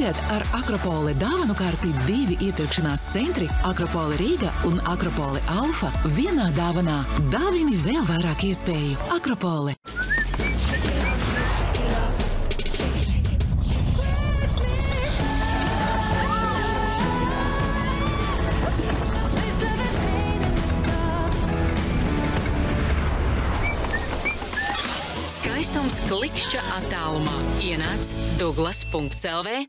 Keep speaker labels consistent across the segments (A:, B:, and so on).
A: Tagad ar Akropole dāvanu karti 2 iepirkšanās centri Akropole Rīga un Akropole Alfa vienā dāvanā. Dāvini vēl vairāk iespēju. Akropole. Skaistums klikšķa attālumā. Ienāc Douglas.lv.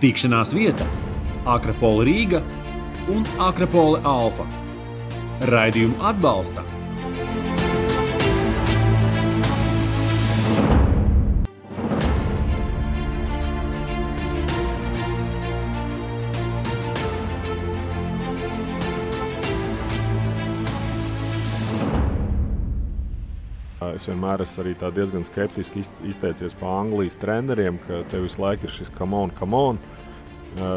B: Tikšanās vieta Akropole Rīga un Akropole Alfa. Raidījumu atbalsta
C: Es vienmēr esmu arī tā diezgan skeptiski izteicies pa Anglijas treneriem, ka tev visu laiku ir šis come on,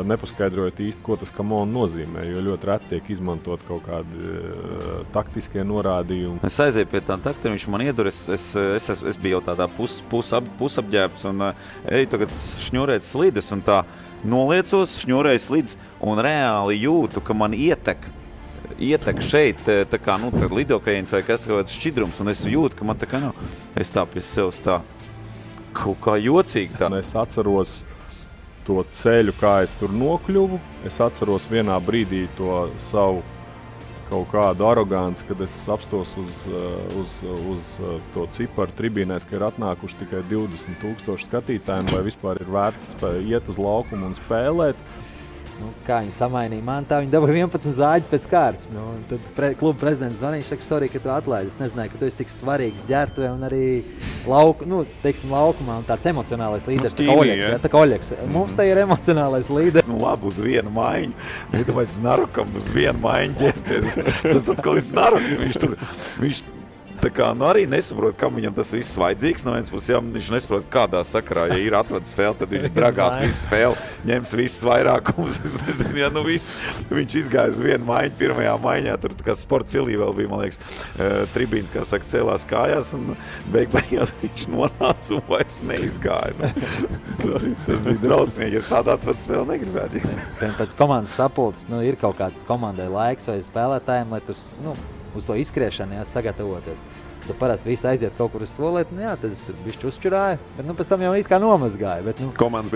C: nepaskaidrojot īsti, ko tas come on nozīmē, jo ļoti reti tiek izmantot kaut kādi taktiskie norādījumi.
D: Es aizēju pie tā takta, viņš man iedur, es biju jau tādā pusapģērbts un eju tagad šņurēt slides un tā noliecos, šņurēju slides un reāli jūtu, ka man ietek šeit, tā kā, lidokaiens vai kas kaut kāds šķidrums, un es jūtu, ka man tā kā, es tā pie sevis tā kaut kā jocīgi tā.
C: Es atceros to ceļu, kā es tur nokļuvu. Es atceros vienā brīdī to savu kaut kādu aroganci, kad es apstos uz to ciparu tribīnēs, ka ir atnākuši tikai 20,000 skatītājiem, vai vispār ir vērts iet uz laukumu un spēlēt.
E: Kā viņi samainīja man, tā viņi dabūja 11 zāģis pēc kārtas. Tad kluba prezidents zvanīja, viņš saka, sorry, ka tu atlaidi. Es nezināju, ka tu esi tik svarīgs ģērbtuvē un arī laukumā un tāds emocionālais līderis. Tā kā Oļeks. Mums te ir emocionālais līderis.
D: Labi, uz vienu maiņu. Iedomājies Narukam uz vienu maiņu ģērbties. Tas atkal ir Naruks. Viņš tā kā arī nesaprot, kam viņam tas viss vajadzīgs. No vienas puses, viņš nesaprot, kādā sakarā, ja ir atvada spēle, tad viņš dragās visu spēli, ņems visas vairākumus. Es nezinu, viņš izgāja uz vienu maiņu, pirmajā maiņā, tur kā sporta filī vēl bija, man liekas, tribīns, kā saka, cēlās kājās, un beigās viņš nonāca un vairs neizgāja. Tas bija drausmīgi, ja tāda atvada spēle negribētu.
E: Pēc komandas sapulces, ir kaut kāds komandai laiks vai spēlētājiem, lai tur, uz to izskriešanu sagatavoties. Tad parasti visi aiziet kaut kur uz tualeti, tad es tur bišķi uzčurāju, bet pēc tam jau it kā nomazgāju. Bet,
C: komandas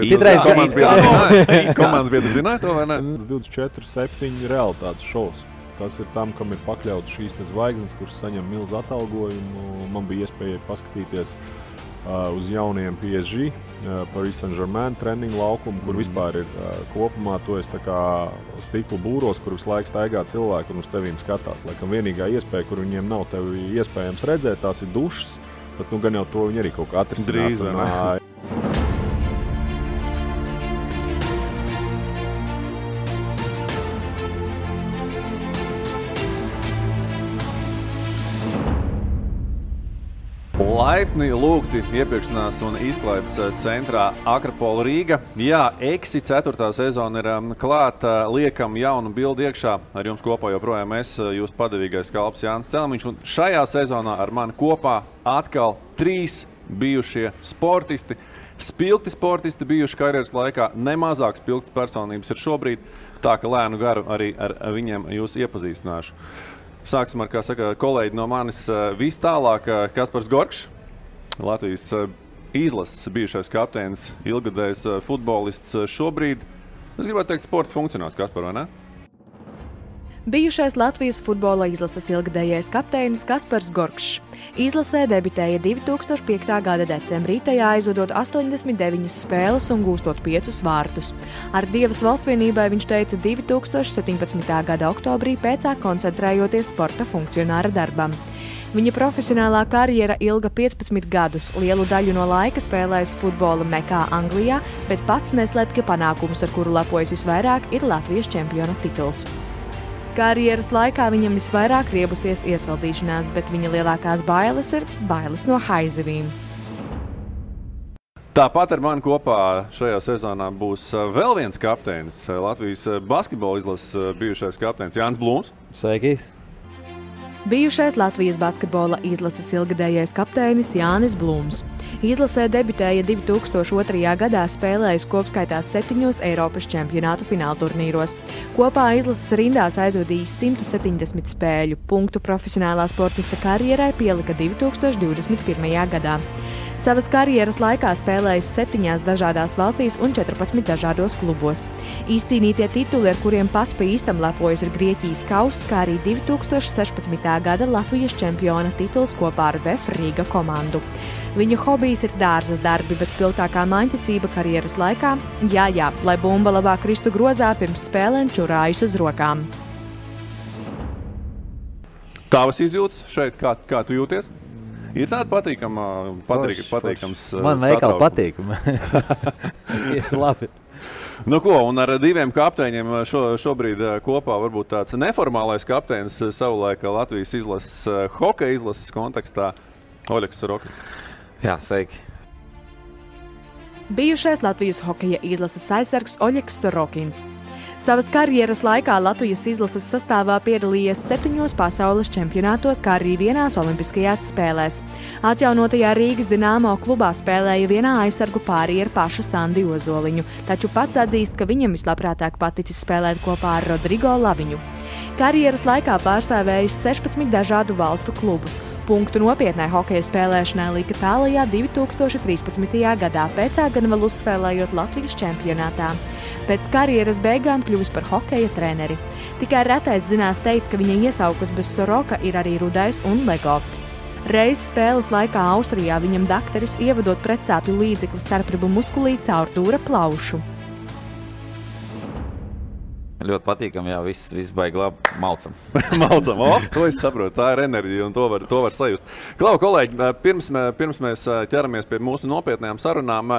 C: biedri zināja to vai ne? 24/7 realitātes šovs. Tas ir tam, kam ir pakļauts šīs zvaigznes, kuras saņem milzu atalgojumu. Man bija iespēja paskatīties uz jauniem PSG, Paris Saint-Germain treniņu laukumu, kur vispār ir kopumā to es tā kā stiklu būros, kur visu laiku staigā cilvēki un uz tevīm skatās. Laikam vienīgā iespēja, kur viņiem nav tevi iespējams redzēt, tās ir dušas, bet gan jau to viņi arī kaut kā atrisinās.
F: Laipni lūgti iepirkšanās un izklaides centrā Akropole Rīga. Jā, EXI 4. sezona ir klāta, liekam jaunu bildi iekšā. Ar jums kopā joprojām es, jūs padevīgais kalps Jānis Celmiņš. Un šajā sezonā ar mani kopā atkal 3 bijušie sportisti. Spilgti sportisti bijuši karjeras laikā, nemazāk spilgtas personības ir šobrīd. Tā ka lēnu garu arī ar viņiem jūs iepazīstināšu. Sāksim ar, kā saka, kolēģi no manis vis tālāk, Kaspars Gorkšs, Latvijas izlases bijušais kapteinis, ilgadējs futbolists šobrīd. Es gribētu teikt sporta funkcionārs, Kaspar, vai ne?
G: Bijušais Latvijas futbola izlases ilgadējais kapteinis Kaspars Gorkšs. Izlasē debitēja 2005. gada decembrī, tajā aizvadot 89 spēles un gūstot 5 vārtus. Ar Dievas valstvienībai viņš teica 2017. gada oktobrī, pēcāk koncentrējoties sporta funkcionāra darbam. Viņa profesionālā karjera ilga 15 gadus, lielu daļu no laika spēlējis futbola Mekā Anglijā, bet pats neslēp, ka panākums, ar kuru lepojas visvairāk, ir Latvijas čempiona tituls. Karjeras laikā viņam visvairāk riebusies iesaldīšanās, bet viņa lielākās bailes ir bailes no haizivīm.
F: Tāpat ar mani kopā šajā sezonā būs vēl viens kapteinis, Latvijas basketbola izlases bijušais kapteinis Jānis Blūms.
E: Sveikīs!
G: Bijušais Latvijas basketbola izlases ilgadējais kapteinis Jānis Blūms. Izlasē debitēja 2002. gadā, spēlējis kopskaitā 7 Eiropas čempionātu finālturnīros. Kopā izlases rindās aizvadījis 170 spēļu. Punktu profesionālā sportista karjerai pielika 2021. gadā. Savas karjeras laikā spēlējis 7 dažādās valstīs un 14 dažādos klubos. Izcīnītie tituli, ar kuriem pats pa īstam lepojas, ir Grieķijas kauss, kā arī 2016. gada Latvijas čempiona tituls kopā ar VF Rīga komandu. Viņa hobijs ir dārza darbi, bet spilgtākā maiņticība karjeras laikā - jā, lai bumba labāk kristu grozā, pirms spēlēm čurājas uz rokām.
F: Tavas izjūtas šeit, kā tu jūties? Ir tāda patīkams
E: Man veikali patīkama. Ir labi.
F: Nu ko, un ar diviem kapteiņiem šobrīd kopā varbūt tāds neformālais kapteinis savulaik Latvijas izlases, hokeja izlases kontekstā Oļegs Sorokins.
D: Jā, sveiki.
G: Bijušais Latvijas hokeja izlases aizsargs Oļegs Sorokins. Savas karjeras laikā Latvijas izlases sastāvā piedalījies 7 pasaules čempionātos, kā arī 1 olimpiskajās spēlēs. Atjaunotajā Rīgas Dināmo klubā spēlēja vienā aizsargu pārī ar pašu Sandi Ozoliņu, taču pats atzīst, ka viņam vislabprātāk paticis spēlēt kopā ar Rodrigo Laviņu. Karjeras laikā pārstāvējis 16 dažādu valstu klubus. Punktu nopietnai hokeja spēlēšanai lika tālajā 2013. gadā, pēcā gan vēl uzspēlējot Latvijas čempionātā. Pēc karjeras beigām kļuvis par hokeja treneri. Tikai retais zinās teikt, ka viņa iesaukas bez Soroka ir arī Rudais un Lego. Reiz spēles laikā Austrijā viņam dakteris ievadot pretsāpju līdzekli starpribu muskulī caur dūra plaušu.
D: Ļoti patīkami, jā, viss baigi labi. Malcam.
F: To es saprotu, tā ir enerģija un to var sajust. Klau, kolēģi, pirms mēs ķeramies pie mūsu nopietnējām sarunām,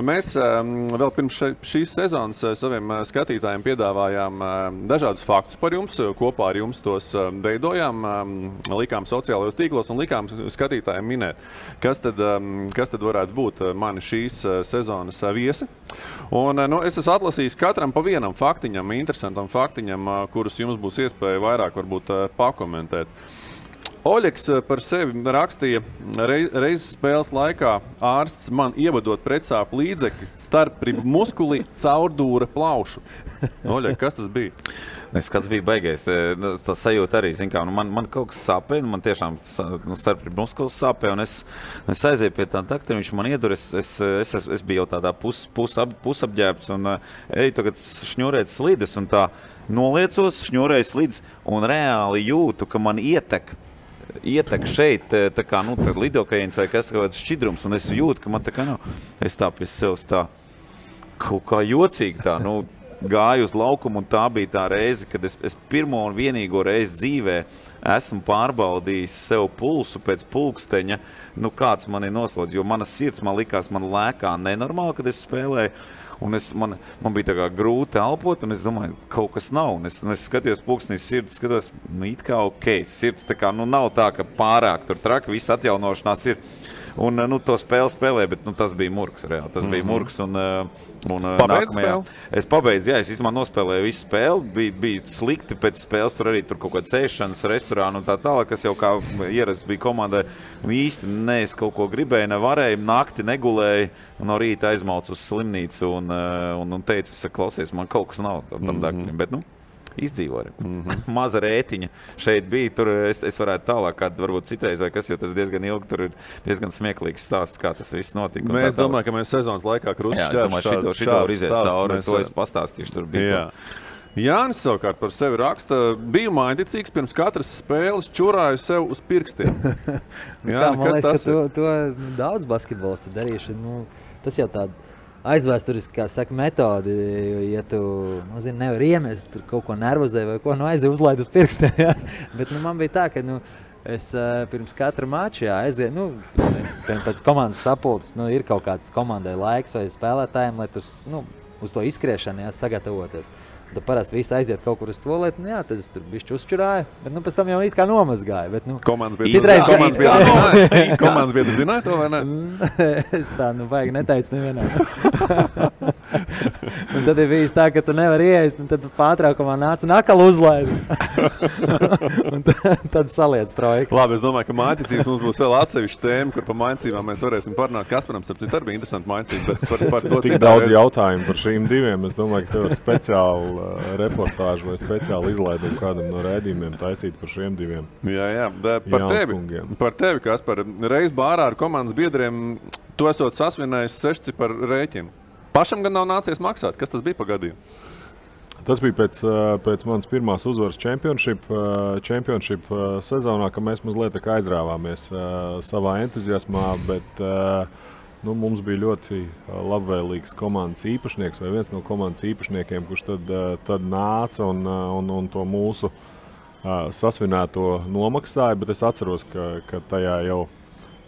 F: mēs vēl pirms šīs sezonas saviem skatītājiem piedāvājām dažādus faktus par jums, kopā ar jums tos veidojām, likām sociālajos tīklos un likām skatītājiem minēt, kas tad varētu būt mani šīs sezonas viesi. Un, es esmu atlasījis katram pa vienam faktiņam, interesantam faktiņam, kurus jums būs iespēja vairāk varbūt pakomentēt. Oļegs par sevi rakstīja, reizes spēles laikā ārsts man ievadot pretsāpju līdzekļi starpribu muskulī caur dūra plaušu. Oļeg, kas tas bija?
D: Skats bija baigais. Tas sajūta arī, zin kā, man kaut kas sāpē, man tiešām starpribu muskulis sāpē, un es aizēju pie tā daktara, viņš man iedur, es biju jau tādā pusapģērbts, un eju tagad šņurēt slides, un tā noliecos, šņurēju slides, un reāli jūtu, ka man ietek šeit, tā kā, lidokaiens vai kas kāds šķidrums, un es jūtu, ka man tā kā, es tā pie sevis tā kaut kā jocīgi tā, gāju uz laukumu, un tā bija tā reize, kad es pirmo un vienīgo reizi dzīvē esmu pārbaudījis sev pulsu pēc pulksteņa, kāds man ir noslodz, jo mana sirds man likās, man lēkā nenormāli, kad es spēlēju, un man bija tā kā grūti elpot, un es domāju, kaut kas nav, un es skatījos pulkstenī sirds, skatos, it kā ok, sirds tā kā, nav tā, ka pārāk tur traki, viss atjaunošanās ir. Un to spēlē, bet tas bija murgs reāli. Tas bija murgs un
F: pabeidz spēli?
D: Es pabeidzu, jā, es īstenībā nospēlēju visu spēli. Bija slikti pēc spēles, tur arī tur kaut kāda sēšanas restorāna un tā tālāk, kas jau kā ierasts bija komandai. Īsti es kaut ko gribēju, nevarēju, nakti negulēju un no rīta aizmaucu uz slimnīcu un teicu, klausies, man kaut kas nav tam dakļiem, bet izdzīvoju. Maza rētiņa šeit bija, tur es varētu tālāk, kāda varbūt citreiz vai kas, jo tas diezgan ilgi, tur ir diezgan smieklīgs stāsts, kā tas viss notika.
F: Mēs domājam, ka mēs sezonas laikā
D: šito var iziet cauri, to es pastāstīšu, tur bija.
F: Jānis savukārt par sevi raksta, biju maiņticīgs, pirms katras spēles čurāju sev uz pirkstiem.
E: Jā, man liekas, ka to daudz basketbolisti darījuši, tas jau tāda aizvēsturiski, kā saka, metodi, ja tu, nevar iemest, tur kaut ko nervozē vai ko, aizēju uzlaid uz pirkstiem, jā. Bet, man bija tā, ka, es pirms katra mača, aizēju, pēc komandas sapulces, ir kaut kāds komandai laiks vai spēlētājiem, lai uz to izskriešanu, sagatavoties. Tad parasti visi aiziet kaut kur uz tualeti, nu jā, tad es tur bišķi uzčurāju, bet nu pēc tam jau it kā nomazgāju. Bet, nu,
F: komandas biedri zināja to, vai ne?
E: Es tā, nu, vajag neteicu nevienā. Un tad ir bijis tā, ka tu nevari ieeist, un tad pārtraukumā nāc un akal uzlaid. Un tad saliec trojkas.
F: Labi, es domāju, ka mājticības mums būs vēl atsevišķa tēma, kur pa mājticībām mēs varēsim parunāt. Kasparam, starp citu, arī bija interesanti mājticības, bet par to
C: tik daudz jautājumu par šīm diviem. Es domāju, ka tev ir speciāli reportāžu vai speciāli izlaidumu kādam no raidījumiem taisīt par šiem diviem.
F: Jā. Par tevi, Kaspar, reiz bārā ar komandas biedriem tu esot sasvinējis 6 par rēķinu. Pašam gan nav nācies maksāt. Kas tas bija pa gadījumu?
C: Tas bija pēc manas pirmās uzvaras championship sezonā, ka mēs mazliet aizrāvāmies savā entuziasmā, bet mums bija ļoti labvēlīgs komandas īpašnieks vai viens no komandas īpašniekiem, kurš tad nāca un to mūsu sasvinēto nomaksāja, bet es atceros, ka tajā jau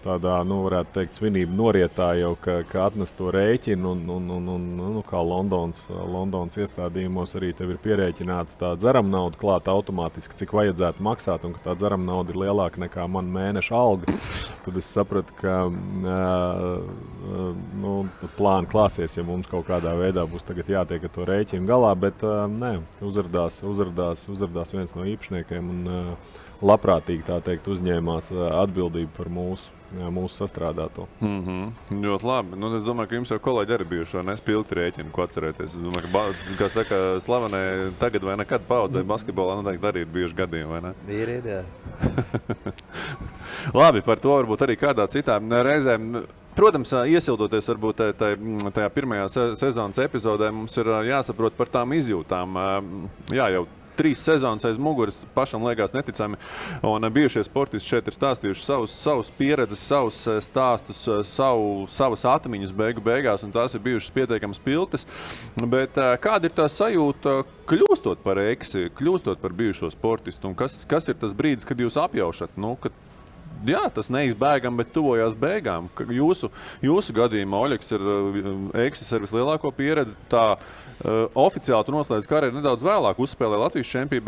C: tādā, varētu teikt, svinību norietā jau, ka atnes to rēķinu un kā Londonas iestādījumos arī tev ir pierēķināta tā dzerama nauda klāta automātiski, cik vajadzētu maksāt, un ka tā dzerama nauda ir lielāka nekā man mēneša alga. Tad es sapratu, ka plāni klāsies, ja mums kaut kādā veidā būs tagad jātiek ar to rēķinu galā, bet uzrādās viens no īpašniekiem un labprātīgi, tā teikt, uzņēmās atbildību par mūsu sastrādāto.
F: Ļoti labi. Es domāju, ka jums jau kolēģi arī bijuši spilgti rēķini, ko atcerēties. Es domāju, ka, kā saka, slavenē tagad vai nekad paudzē basketbolā noteikti arī ir bijuši gadījumi, vai ne?
E: Ir, jā.
F: Labi, par to varbūt arī kādā citā reizē. Protams, iesildoties varbūt tajā pirmajā sezonas epizodē, mums ir jāsaprot par tām izjūtām. Jā, jau 3 sezonas aiz muguras pašam liekas neticami, un bijušie sportisti šeit ir stāstījuši savus pieredzes, savus stāstus, savas atmiņas beigās, un tās ir bijušas pietiekami spilgtas. Bet kāda ir tā sajūta, kļūstot par eksi, kļūstot par bijušo sportistu, un kas ir tas brīdis, kad jūs apjaušat, kad jā, tas neizbēgam, bet tuvojās beigām. Jūsu gadījumā Oļegs ir eksis ar vislielāko pieredzi. Tā oficiāli tu noslēdz karjeru nedaudz vēlāk, uzspēlēja Latvijas čempiju,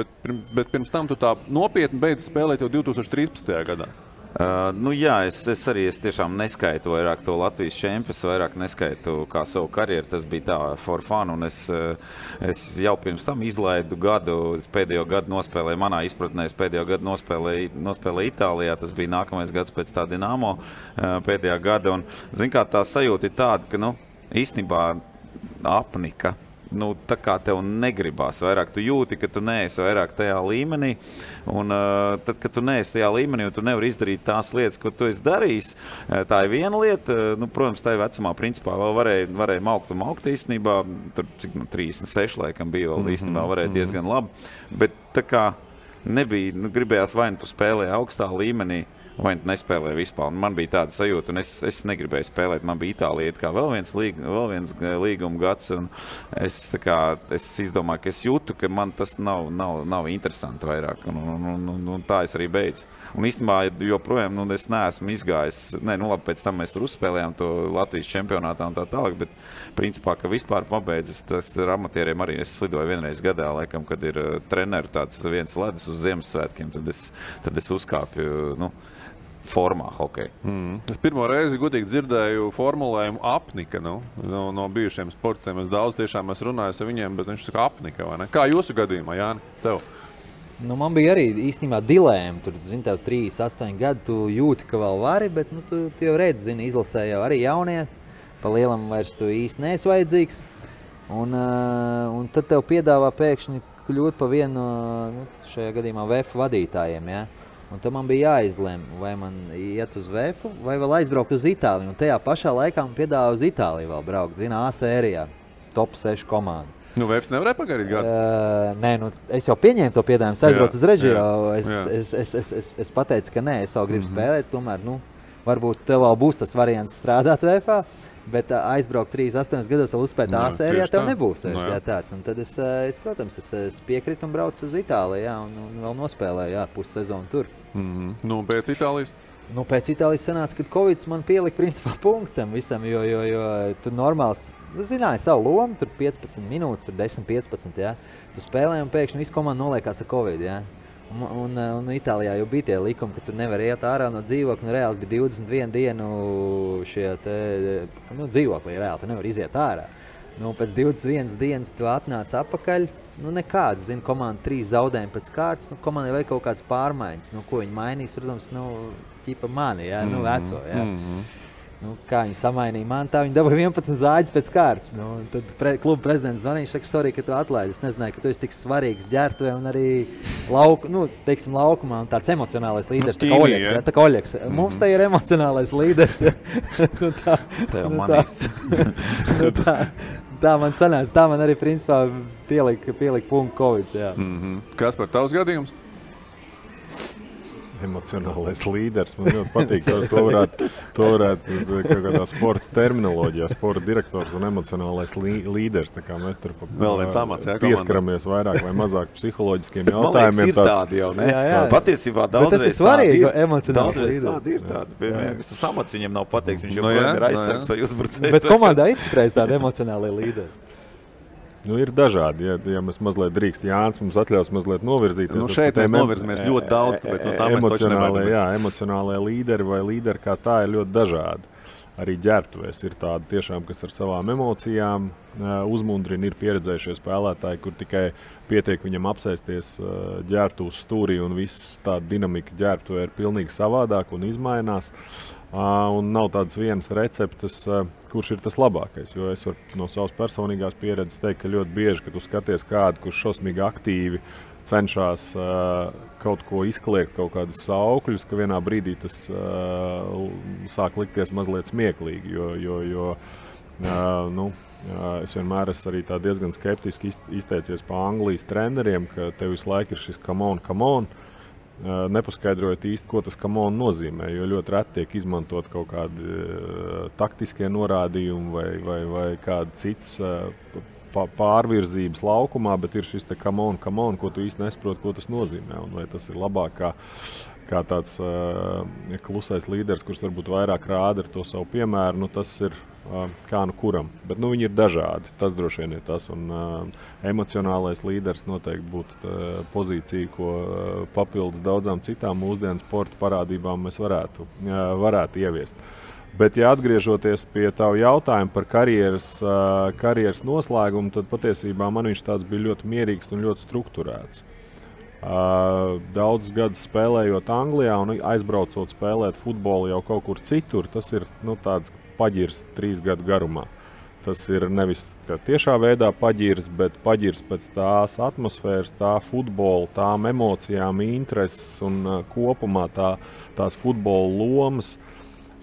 F: bet pirms tam tu tā nopietni beidz spēlēt jau 2013. gadā.
D: Es tiešām neskaitu vairāk to Latvijas čempionu, vairāk neskaitu kā savu karjeru. Tas bija tā for fun, un es jau pirms tam izlaidu gadu, pēdējo gadu nospēlēju, manā izpratnē, pēdējo gadu nospēlēju Itālijā. Tas bija nākamais gads pēc tā Dinamo pēdējā gada, un, kā tā sajūta ir tāda, ka, īstenībā apnika. Tā kā tev negribās vairāk, tu jūti, ka tu neesi vairāk tajā līmenī, un tad, kad tu neesi tajā līmenī un tu nevari izdarīt tās lietas, ko tu esi darījis, tā ir viena lieta. Protams, tajā vecumā principā vēl varēja maukt īstenībā, tur cik 36 laikam bija vēl īstenībā varēja diezgan labi, bet tā kā nebija, gribējās vai tu spēlēji augstā līmenī, vai nespēlēja vispār. Man bija tāda sajūta, un es negribēju spēlēt. Man bija Itālija kā vēl viens līguma gads, un es izdomāju, ka es jūtu, ka man tas nav interesanti vairāk, un tā es arī beidzu. Un īstenībā joprojām es neesmu izgājis, labi, pēc tam mēs tur uzspēlējām to Latvijas čempionātā un tā tālāk, bet principā, ka vispār pabeidzis, tas ar amatieriem arī es slidoju vienreiz gadā, laikam, kad ir treneru tāds viens ledus uz Ziemassvētkiem, tad es uzkāpju, formā hokeja.
F: Es pirmo reizi godīgi dzirdēju formulējumu apnika, no bijušiem sportistiem. Es daudz tiešām runāju ar viņiem, bet viņš saka apnika, vai ne? Kā jūsu gadījumā, Jāni, tev?
E: Man bija arī īstenībā dilēma. Tur, tev 3-8 gadi, tu jūti, ka vēl vari, bet tu jau redzi, izlasē jau arī jaunie. Pa lielam vairs tu īsti neesi vajadzīgs. Un tad tev piedāvā pēkšņi kļūt pa vienu, šajā gadījumā VF vadītājiem, ja? Un tad man bija jāizlem, vai man iet uz VF vai vēl aizbraukt uz Itāliju. Un tajā pašā laikā man piedāvā uz Itāliju vēl braukt, A sērijā, top 6 komanda.
F: VF nevarēja pagarīt gadu?
E: Nē, es jau pieņēmu to piedāvājumu, es aizbraucu uz Reģio. Es pateicu, ka nē, es vēl gribu spēlēt, tomēr, varbūt tev vēl būs tas variants strādāt VF, bet aizbraukt 3-8 gados vēl uzspēt A sērijā tev nebūs. Tāds. Un tad es piekritu un braucu uz Itāliju, un vēl nospēlēju pussezonu tur.
F: Pēc Itālijas?
E: Pēc Itālijas sanāca, kad Covid man pielika principā punktam visam, jo tu normāls zināja savu lomu, tur 15 minūtes, tur 10-15, jā. Tu spēlēji un pēkšņi visu komandu noliekās ar Covid, jā. Un Itālijā jau bija tie likumi, ka tu nevar iet ārā no dzīvokļa, reāls bija 21 dienu šie te, dzīvoklī reāli, tu nevar iziet ārā. Pēc 21 dienas tu atnāc atpakaļ, nekāds, komanda 3 zaudējumi pēc kārtas, komandai vajag kaut kādas pārmaiņas, ko viņi mainīs, protams, ķipa mani, jā, veco, jā. Kā viņi samainīja mani, tā viņi dabūja 11 zāģis pēc kārtas. Tad kluba prezidents zvanīja, viņš saka, sorry, ka tu atlaidi. Es nezināju, ka tu esi tik svarīgs ģērbtuvē un arī laukumā un tāds emocionālais līderis, tā kā Oļeks. Mums te ir emocionālais līderis.
D: Tā jau manīs.
E: Tā man sanāca, tā man arī principā pielika punktu Covid.
F: Kas par tavs gadījums?
C: Emocionālais līderis. Man ļoti patīk. To varētu kaut kādā sporta terminoloģijā, sporta direktors un emocionālais līderis. Tā kā mēs tur pieskaramies vairāk vai mazāk psiholoģiskiem jautājumiem.
D: Man liekas, ir tādi jau, ne? Jā. Patiesībā daudzreiz tādi ir.
E: Daudzreiz
D: tādi ir tādi. Tas amats viņam nav pateikts, viņš joprojām ir aizsargs vai uzbrucējs.
E: Bet komandā ir citreiz tādi emocionālie līderi.
C: Ir dažādi, ja mēs mazliet drīkst. Jānis mums atļaus mazliet novirzīties.
F: Šeit mēs novirzamies ļoti daudz, tāpēc no tā mēs taču nevaram.
C: Emocionālie līderi vai līderi kā tā ir ļoti dažādi. Arī ģērbtuvēs ir tādi tiešām, kas ar savām emocijām uzmundrina, ir pieredzējušie spēlētāji, kur tikai pietiek viņam apsēsties ģērbtuves stūrī un viss tāda dinamika ģērbtuvē ir pilnīgi savādāk un izmainās. Un nav tādas vienas receptes, kurš ir tas labākais. Jo es varu no savas personīgās pieredzes teikt, ka ļoti bieži, kad tu skaties kādu, kurš šausmīgi aktīvi cenšas kaut ko izkliegt, kaut kādus saukļus, ka vienā brīdī tas sāk likties mazliet smieklīgi. Jo es vienmēr esmu arī tā diezgan skeptiski izteicies pa Anglijas treneriem, ka tev visu laiku ir šis come on. Nepaskaidrojot īsti, ko tas come on nozīmē, jo ļoti reti tiek izmantot kaut kādi taktiskie norādījumi vai kādi cits pārvirzības laukumā, bet ir šis te come on, ko tu īsti nesaproti, ko tas nozīmē. Un vai tas ir labāk kā tāds klusais līderis, kurš varbūt vairāk rāda ar to savu piemēru, tas ir kā kuram. Bet viņi ir dažādi, tas droši vien ir tas. Un emocionālais līderis noteikti būtu pozīcija, ko papildus daudzām citām mūsdienu sporta parādībām mēs varētu ieviest. Bet, ja atgriežoties pie tavu jautājumu par karjeras noslēgumu, tad patiesībā man viņš tāds bija ļoti mierīgs un ļoti strukturēts. Daudzus gadus spēlējot Anglijā un aizbraucot spēlēt futbolu jau kaut kur citur, tas ir tāds paģirs 3 gadu garumā. Tas ir nevis tiešā veidā paģirs, bet paģirs pēc tās atmosfēras, tā futbola, tām emocijām, intereses un kopumā tās futbola lomas,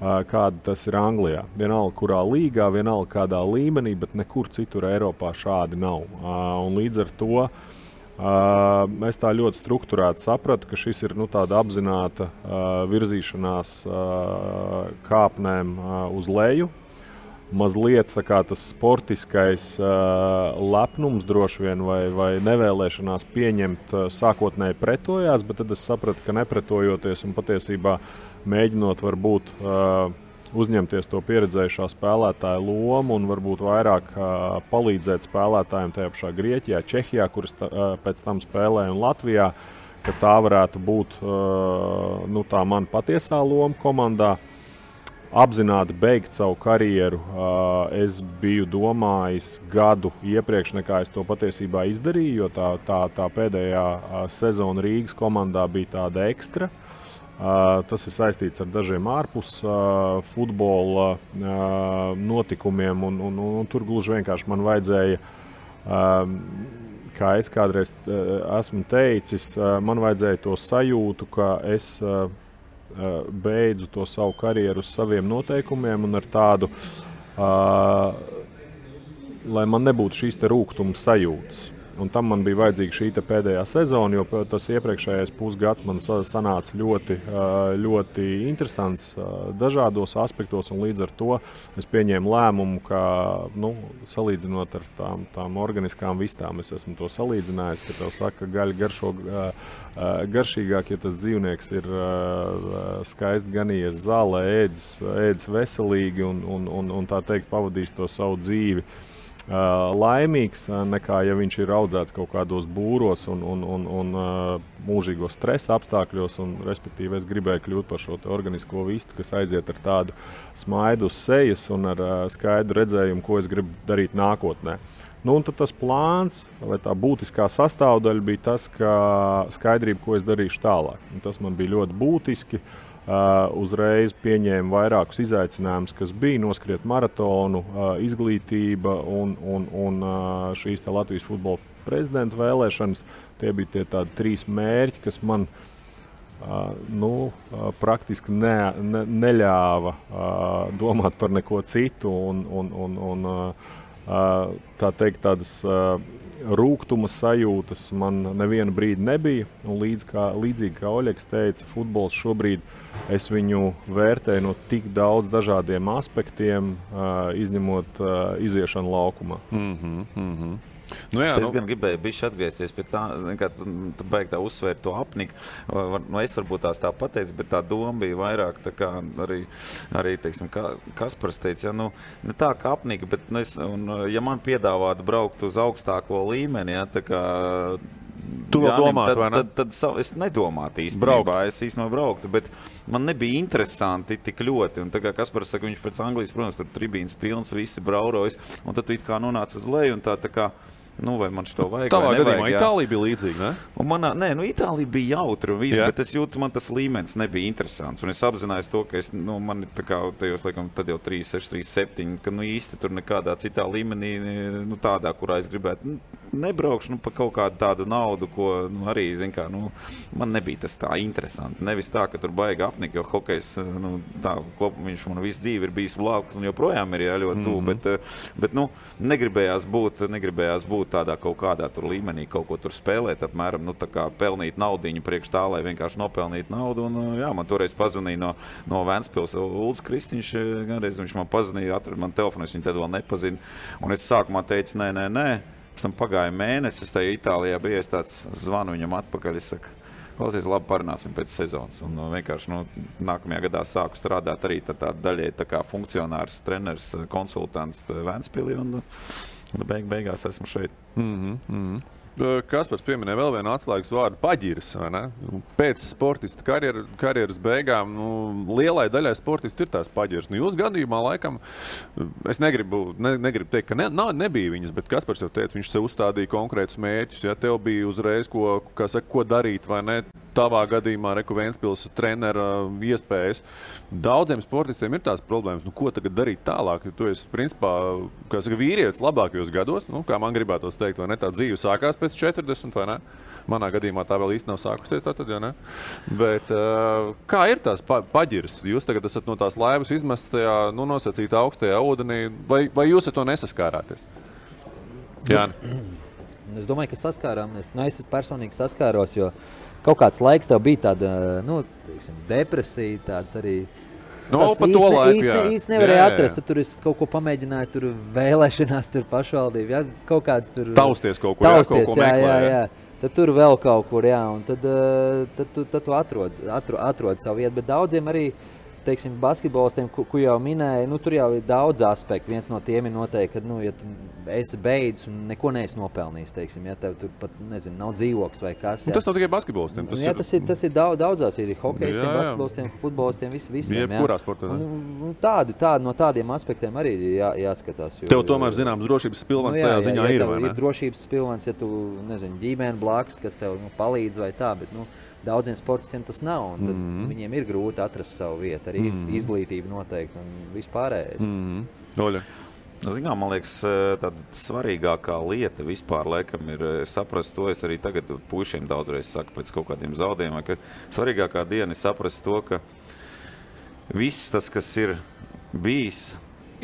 C: kāda tas ir Anglijā. Vienalga, kurā līgā, vienalga, kādā līmenī, bet nekur citur Eiropā šādi nav. Un līdz ar to es tā ļoti strukturēti sapratu, ka šis ir tāda apzināta virzīšanās kāpnēm uz leju. Mazliet tas sportiskais lepnums droši vien vai nevēlēšanās pieņemt sākotnēji pretojās, bet tad es sapratu, ka nepretojoties un patiesībā mēģinot varbūt uzņemties to pieredzējušā spēlētāja lomu un varbūt vairāk palīdzēt spēlētājiem tajā pašā Grieķijā, Čehijā, kuras pēc tam spēlēja, un Latvijā, ka tā varētu būt tā mana patiesā loma komandā. Apzināti beigt savu karjeru es biju domājis gadu iepriekš, nekā es to patiesībā izdarīju, jo tā pēdējā sezona Rīgas komandā bija tāda ekstra. Tas ir saistīts ar dažiem ārpus futbola notikumiem, un tur gluži vienkārši man vajadzēja, kā es kādreiz esmu teicis, man vajadzēja to sajūtu, ka es beidzu to savu karjeru uz saviem noteikumiem un ar tādu, lai man nebūtu šīs te rūgtuma sajūtas. Un tam man bija vajadzīga šī pēdējā sezona, jo tas iepriekšējais pusgads man sanāca ļoti interesants dažādos aspektos, un līdz ar to es pieņēmu lēmumu, ka, salīdzinot ar tām organiskām vistām, es esmu to salīdzinājis, ka tev saka, ka gaļa garšo garšīgāk, ja tas dzīvnieks ir skaisti ganījies zālē, ēdis veselīgi un tā teikt pavadīs to savu dzīvi laimīgs, nekā ja viņš ir audzēts kaut kādos būros un mūžīgos stresa apstākļos, un respektīvi es gribēju kļūt par šo organisko vistu, kas aiziet ar tādu smaidu uz sejas un ar skaidru redzējumu, ko es gribu darīt nākotnē. Un tad tas plāns, vai tā būtiskā sastāvdaļa bija tas, ka skaidrība, ko es darīšu tālāk. Un tas man bija ļoti būtiski. Uzreiz pieņēmu vairākus izaicinājumus, kas bija noskriet maratonu, izglītība un šīs Latvijas futbola prezidenta vēlēšanas. Tie bija tie tādi 3 mērķi, kas man praktiski neļāva domāt par neko citu un tā teikt tādas rūgtuma sajūtas man nevienu brīdi nebija. Un līdzīgi kā Oļegs teica, futbols šobrīd es viņu vērtēju no tik daudz dažādiem aspektiem, izņemot iziešanu laukumā.
D: Es gan gribēju bišķi atgriezties pie tā, kā tu beigi tā uzsvērt to apniku. Es varbūt tā pateicu, bet tā doma bija vairāk tā kā arī teiksim, Kaspars teica, ne tā kā apnika, bet ja man piedāvātu braukt uz augstāko līmeni, tā kā
F: tu vēl domātu, vai ne?
D: Tad es nedomātu īstenībā, es īstenībā brauktu, bet man nebija interesanti tik ļoti. Un tā kā Kaspars saka, viņš pēc Anglijas, protams, tur tribīnas pilns, visi braurojas, un tad tu it kā nonāc uz leju, un tā kā, vai man šito vajag,
F: tavā
D: vai nevajag.
F: Gadījumā Itālija bija līdzīga, ne?
D: Itālija bija jautra un viss, bet es jūtu, man tas līmenis nebija interesants. Un es apzinājos to, ka man ir tā kā tajos, laikam, tad jau 3, 6, 3, 7, ka īsti tur nekādā citā līmenī, tādā, kurā es gribētu nebraukšu pa kaut kādu tādu naudu, ko arī, man nebija tas tā interesanti. Nevis tā, ka tur baigi apnika, jo hokejs, viņš man visu dzīvi ir bijis blakus un joprojām ir ļoti tuvu, bet negribējās būt tādā kaut kādā tur līmenī, kaut ko tur spēlēt, apmēram, tā kā pelnīt naudiņu priekš tā, lai vienkārši nopelnīt naudu. Un, man toreiz pazvanīja no Ventspils Ulds Kristiņš, ganreiz viņš man pazvanīja, atrada man telefonu, es viņu tad vēl nepazinu. Un es sākumā teicu, nē. Pēc tam pagāja mēnesis, es tajā Itālijā bija, es tāds zvanu viņam atpakaļ, es saku, klausies, labi, parunāsim pēc sezonas. Un vienkārši nākamajā gadā sāku strādāt arī tā daļai tā kā funkcionārs, treneris, konsultants Ventspilī, un beigās esmu šeit.
F: Kaspars pieminēja vēl vienu atslēgas vārdu paģiras, vai ne? Pēc sportista karjeras beigām, lielai daļai sportistu ir tās paģiras. Jūs gadījumā laikam, es negribu teikt, ka nebija viņas, bet Kaspars jau teica, viņš sev uzstādīja konkrētus mērķus, ja tev bija uzreiz, ko darīt, vai ne? Tavā gadījumā Ventspils trenera iespējas. Daudziem sportistiem ir tās problēmas, ko tagad darīt tālāk, jo tu esi, principā, vīrietis labākajos gados, kā man gribētos teikt, vai ne, tā dzīve sākās pēc 40, vai ne? Manā gadījumā tā vēl īsti nav sākusies, tātad, ja ne? Bet kā ir tās paģiras? Jūs tagad esat no tās laivas izmests tajā, nosacītā augstajā ūdenī, vai jūs ar to nesaskārāties? Jāni?
E: Es domāju, ka saskārāmies. Es personīgi saskāros, jo kaut kāds laiks tev bija tāda, depresija, tāds arī. Īsti nevarēja atrast, tur es kaut ko pamēģināju, tur vēlēšanās, tur pašvaldību, kaut kāds tur.
F: Tausties kaut kur, kaut ko meklē.
E: Jā. Tad tur vēl kaut kur, un tad tu atrod savu vietu, bet daudziem arī, teiksim, basketbolistiem, ko jau minēja, tur jau ir daudz aspektu. Viens no tiem ir noteikti, ka, ja tu esi beidzis un neko neesi nopelnījis, teiksim, ja tev tur pat, nav dzīvoklis vai kas.
F: Tas nav tikai basketbolistiem.
E: Tas ir daudzās, ir hokejistiem, basketbolistiem, futbolistiem, visiem.
F: Jebkurā sportā.
E: Tādi no tādiem aspektiem arī ir jāskatās.
F: Tev tomēr zināms drošības pilvens tajā ziņā ir, vai ne?
E: Ir drošības pilvens, ja tu, ģimene blakus, kas tev palīdz vai tā, bet, daudziem sportistiem tas nav, un tad viņiem ir grūti atrast savu vietu, arī izglītība noteikti un vispārējais.
F: Oļa.
D: Man liekas, tāda svarīgākā lieta vispār laikam ir saprast to, es arī tagad puišiem daudzreiz saku pēc kaut kādiem zaudējumiem, ka svarīgākā diena ir saprast to, ka viss tas, kas ir bijis,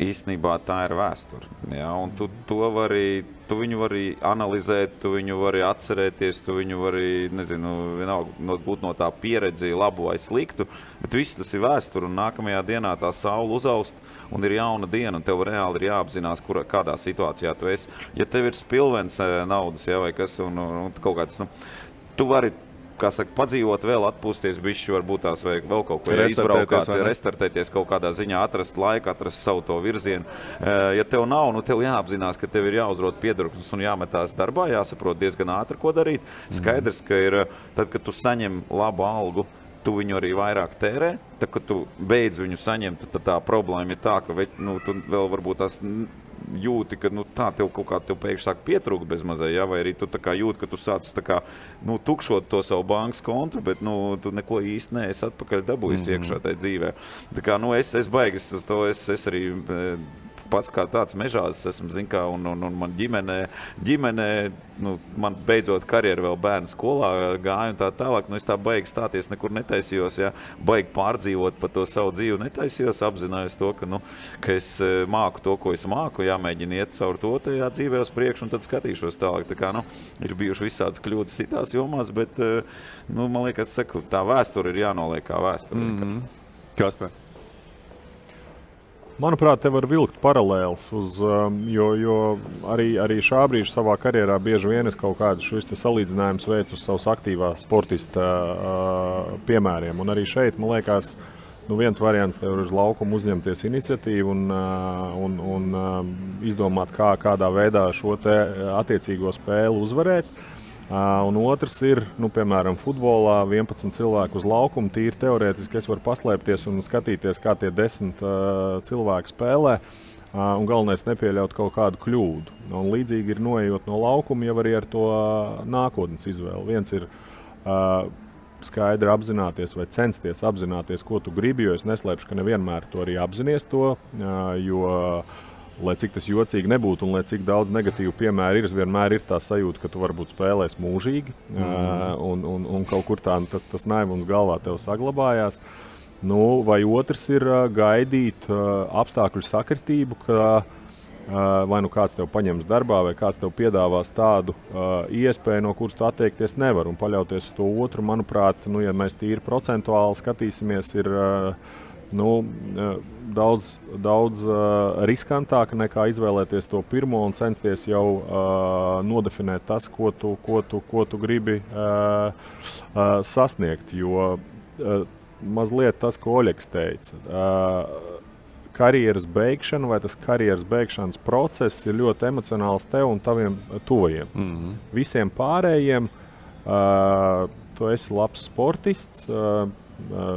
D: īstenībā tā ir vēsture. Ja? Un tu viņu vari analizēt, tu viņu vari atcerēties, tu viņu vari, nezinu, vienalga būt no tā pieredzi labu vai sliktu, bet viss tas ir vēsture, un nākamajā dienā tā saule uzaust, un ir jauna diena, un tev reāli ir jāapzinās, kādā situācijā tu esi. Ja tev ir spilvens naudas, ja, vai kas, un kaut kāds, tu vari, kā saka, padzīvot vēl, atpūsties bišķi, varbūt tās vai vēl kaut ko izbraukāt, restartēties kaut kādā ziņā, atrast laiku, atrast savu to virzienu. Ja tev nav, tev jāapzinās, ka tev ir jāuzrod piedurknes un jāmetās darbā, jāsaprot diezgan ātri, ko darīt. Skaidrs, ka ir, tad, kad tu saņem labu algu, tu viņu arī vairāk tērē, tad, kad tu beidz viņu saņemt, tad tā problēma ir tā, ka tu vēl varbūt tās jūti, ka tā tev kaut kā pēkšņi sāk pietrūkt bez mazai, ja? Vai arī tu tā kā jūti, ka tu sāc tā kā, tukšot to savu bankas kontu, bet tu neko īsti neesi atpakaļ dabūjis iekšā tajā dzīvē. Tā kā, es baigas uz to, es arī pats kā tāds mežās esmu, zin kā, un man ģimene, man beidzot karjeru vēl bērnu skolā gāju un tā tālāk, es tā baigi stāties nekur netaisījos, ja, baigi pārdzīvot par to savu dzīvi netaisījos, apzinājos to, ka es māku to, ko es māku, jāmēģina iet caur to tajā dzīvē uz priekšu un tad skatīšos tālāk. Tā kā, ir bijuši visādas kļūdas citās jomās, bet, man liekas, saku, tā vēsture ir jānoliek kā vēsture.
F: Kaspar?
C: Manuprāt, te var vilkt paralēls, jo arī šā brīža savā karjerā bieži vien es kaut kādu šis salīdzinājums veicu uz savas aktīvā sportista piemēriem. Un arī šeit, man liekas, viens variants tev ir uz laukumu uzņemties iniciatīvu un izdomāt, kādā veidā šo te attiecīgo spēli uzvarēt. Un otrs ir, piemēram, futbolā 11 cilvēku uz laukumu, tīri teorētiski es varu paslēpties un skatīties, kā tie 10 cilvēki spēlē, un galvenais nepieļaut kaut kādu kļūdu. Un līdzīgi ir noejot no laukuma jau arī ar to nākotnes izvēli. Viens ir skaidri apzināties vai censties apzināties, ko tu gribi, jo es neslēpšu, ka nevienmēr to arī apzinies to, jo lai cik tas jocīgi nebūtu un lai cik daudz negatīvu piemēru ir, vienmēr ir tā sajūta, ka tu varbūt spēlēs mūžīgi un kaut kur tā tas naivums galvā tev saglabājās. Vai otrs ir gaidīt apstākļu sakritību, ka vai kāds tev paņems darbā vai kāds tev piedāvās tādu iespēju, no kuras tu atteikties nevar un paļauties uz to otru. Manuprāt, ja mēs tīri procentuāli skatīsimies, ir daudz riskantāk nekā izvēlēties to pirmo un censties jau nodefinēt tas, ko tu gribi sasniegt. Jo mazliet tas, ko Oļegs teica, karjeras beigšana vai tas karjeras beigšanas process ir ļoti emocionāls tev un taviem tuvajiem. Visiem pārējiem tu esi labs sportists,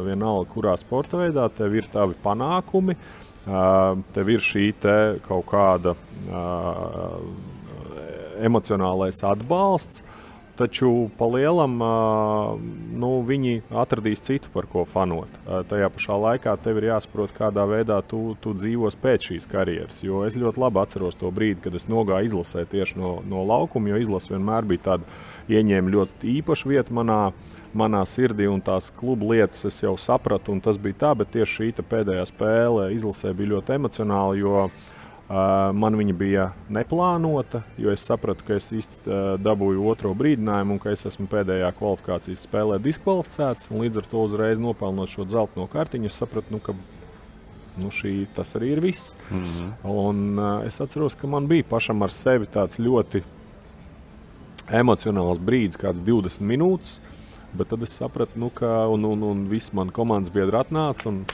C: vienalga, kurā sporta veidā, tev ir tavi panākumi, tev ir šī te kaut kāda emocionālais atbalsts, taču pa lielam viņi atradīs citu, par ko fanot. Tajā pašā laikā tev ir jāsaprot, kādā veidā tu dzīvos pēc šīs karjeras, jo es ļoti labi atceros to brīdi, kad es nogāju izlasē tieši no laukuma, jo izlase vienmēr bija tāda ieņēma ļoti īpaša vieta manā sirdī, un tās klubu lietas es jau sapratu, un tas bija tā, bet tieši šī pēdējā spēle izlasē bija ļoti emocionāla, jo man viņa bija neplānota, jo es sapratu, ka es dabūju otro brīdinājumu un ka es esmu pēdējā kvalifikācijas spēlē diskvalificēts, un līdz ar to uzreiz nopelnot šo dzelteno kartiņu, es sapratu, ka tas arī ir viss. Un es atceros, ka man bija pašam ar sevi tāds ļoti emocionāls brīdis, kāds 20 minūtes, bet tad es sapratu, ka un visi mani komandas biedri atnāca un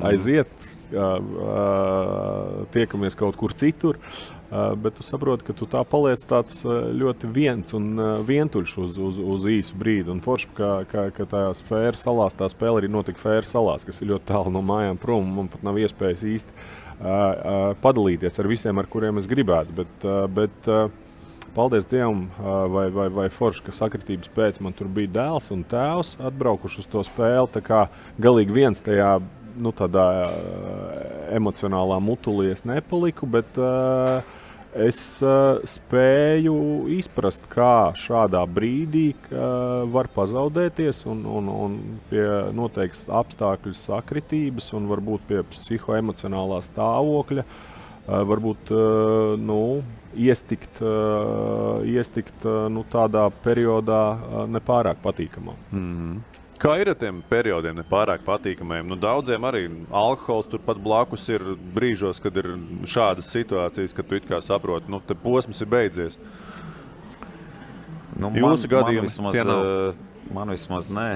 C: aiziet, tiekamies kaut kur citur, bet tu saproti, ka tu tā paliec tāds ļoti viens un vientuļš uz īsu brīdi. Un forši, ka tajās Fēru salās, tā spēle arī notika Fēru salās, kas ir ļoti tālu no mājām prom, un man pat nav iespējas īsti padalīties ar visiem, ar kuriem es gribētu, bet paldies Dievam, vai forši, ka sakritības pēc man tur bija dēls un tēvs atbraukuši uz to spēli, tā kā galīgi viens tajā, tādā emocionālā mutulī es nepaliku, bet Es spēju izprast, kā šādā brīdī var pazaudēties un pie noteiktas apstākļu sakritības un varbūt pie psihoemocionālā stāvokļa varbūt iestikt tādā periodā nepārāk patīkamā.
F: Mm-hmm. Kā ir ar tiem periodiem nepārāk patīkamajiem? Daudziem arī alkohols turpat blakus ir brīžos, kad ir šādas situācijas, kad tu it kā saproti, te posms ir beidzies. Jūsu gadījumi tie nav?
D: Man vismaz nē.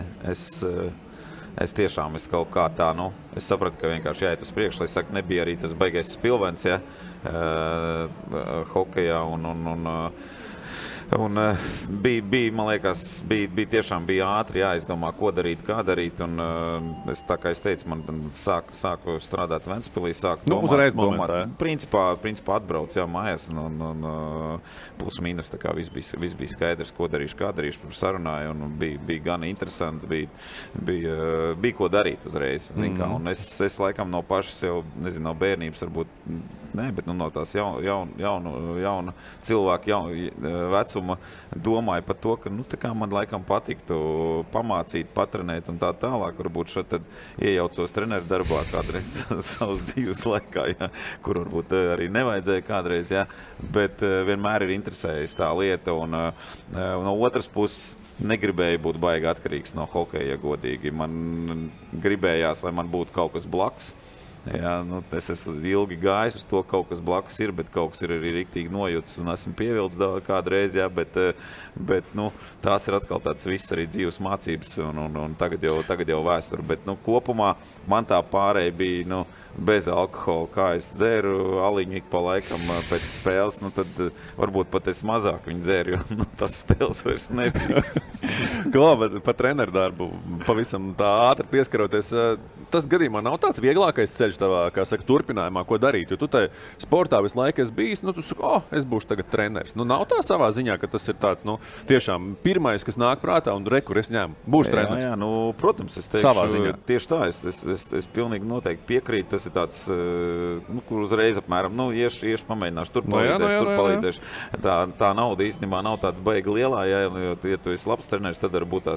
D: Es tiešām kaut kā tā, es sapratu, ka vienkārši jāiet uz priekšu, lai saka, nebija arī tas baigais spilvens, hokejā un bija, man liekas, tiešām bija ātri jāizdomā, ko darīt, kā darīt, un es, tā kā es teicu, man sāku strādāt Ventspilī, sāku domāt, principā atbrauc, mājās, un plus mīnus, tā kā viss bija skaidrs, ko darīšu, kā darīšu, sarunāju, un bija gan interesanti, bija ko darīt uzreiz, kā, un es laikam no paša sev, nezinu, no bērnības varbūt, bet no tās jauna cilvēka vecuma domāju par to, ka tā kā man laikam patiktu pamācīt, patrenēt un tā tālāk, varbūt šeit tad iejaucos treneru darbā kādreiz savas dzīves laikā, kur varbūt arī nevajadzēja kādreiz, bet vienmēr ir interesējusi tā lieta un no otras puses negribēju būt baigi atkarīgs no hokeja, godīgi. Man gribējās, lai man būtu kaut kas blakus. Es esmu ilgi gājis uz to, kaut kas blakus ir, bet kaut kas ir arī riktīgi nojūtas un esmu pievilcis kādreiz, bet tās ir atkal tāds viss arī dzīves mācības un tagad jau vēsture, bet kopumā man tā pārēja bija, bez alkohola, kā es dzēru aliņu ik pa laikam pēc spēles, tad varbūt pat es mazāk viņu dzēru, jo tas spēles vairs nebija.
F: Labi, par treneru darbu pavisam tā ātri pieskaroties. Tas gadījumā nav tāds vieglākais ceļš tavā, kā saka, turpinājumā, ko darīt, jo tu tai sportā visu laiku esi bijis, tu saki, es būšu tagad treneris. Nav tā savā ziņā, ka tas ir tāds, tiešām pirmais, kas nāk prātā un rekur es ņēmu, būšu treneris.
D: Jā, protams, es teikšu, tieši tā, es pilnīgi noteikti piekrītu, tas ir tāds, kur uzreiz apmēram, iešu pamēģināšu, tur palīdzēšu. Tā nauda īstenībā nav tāda baigi lielā, jo, ja tu esi labs treneris, tad varbūt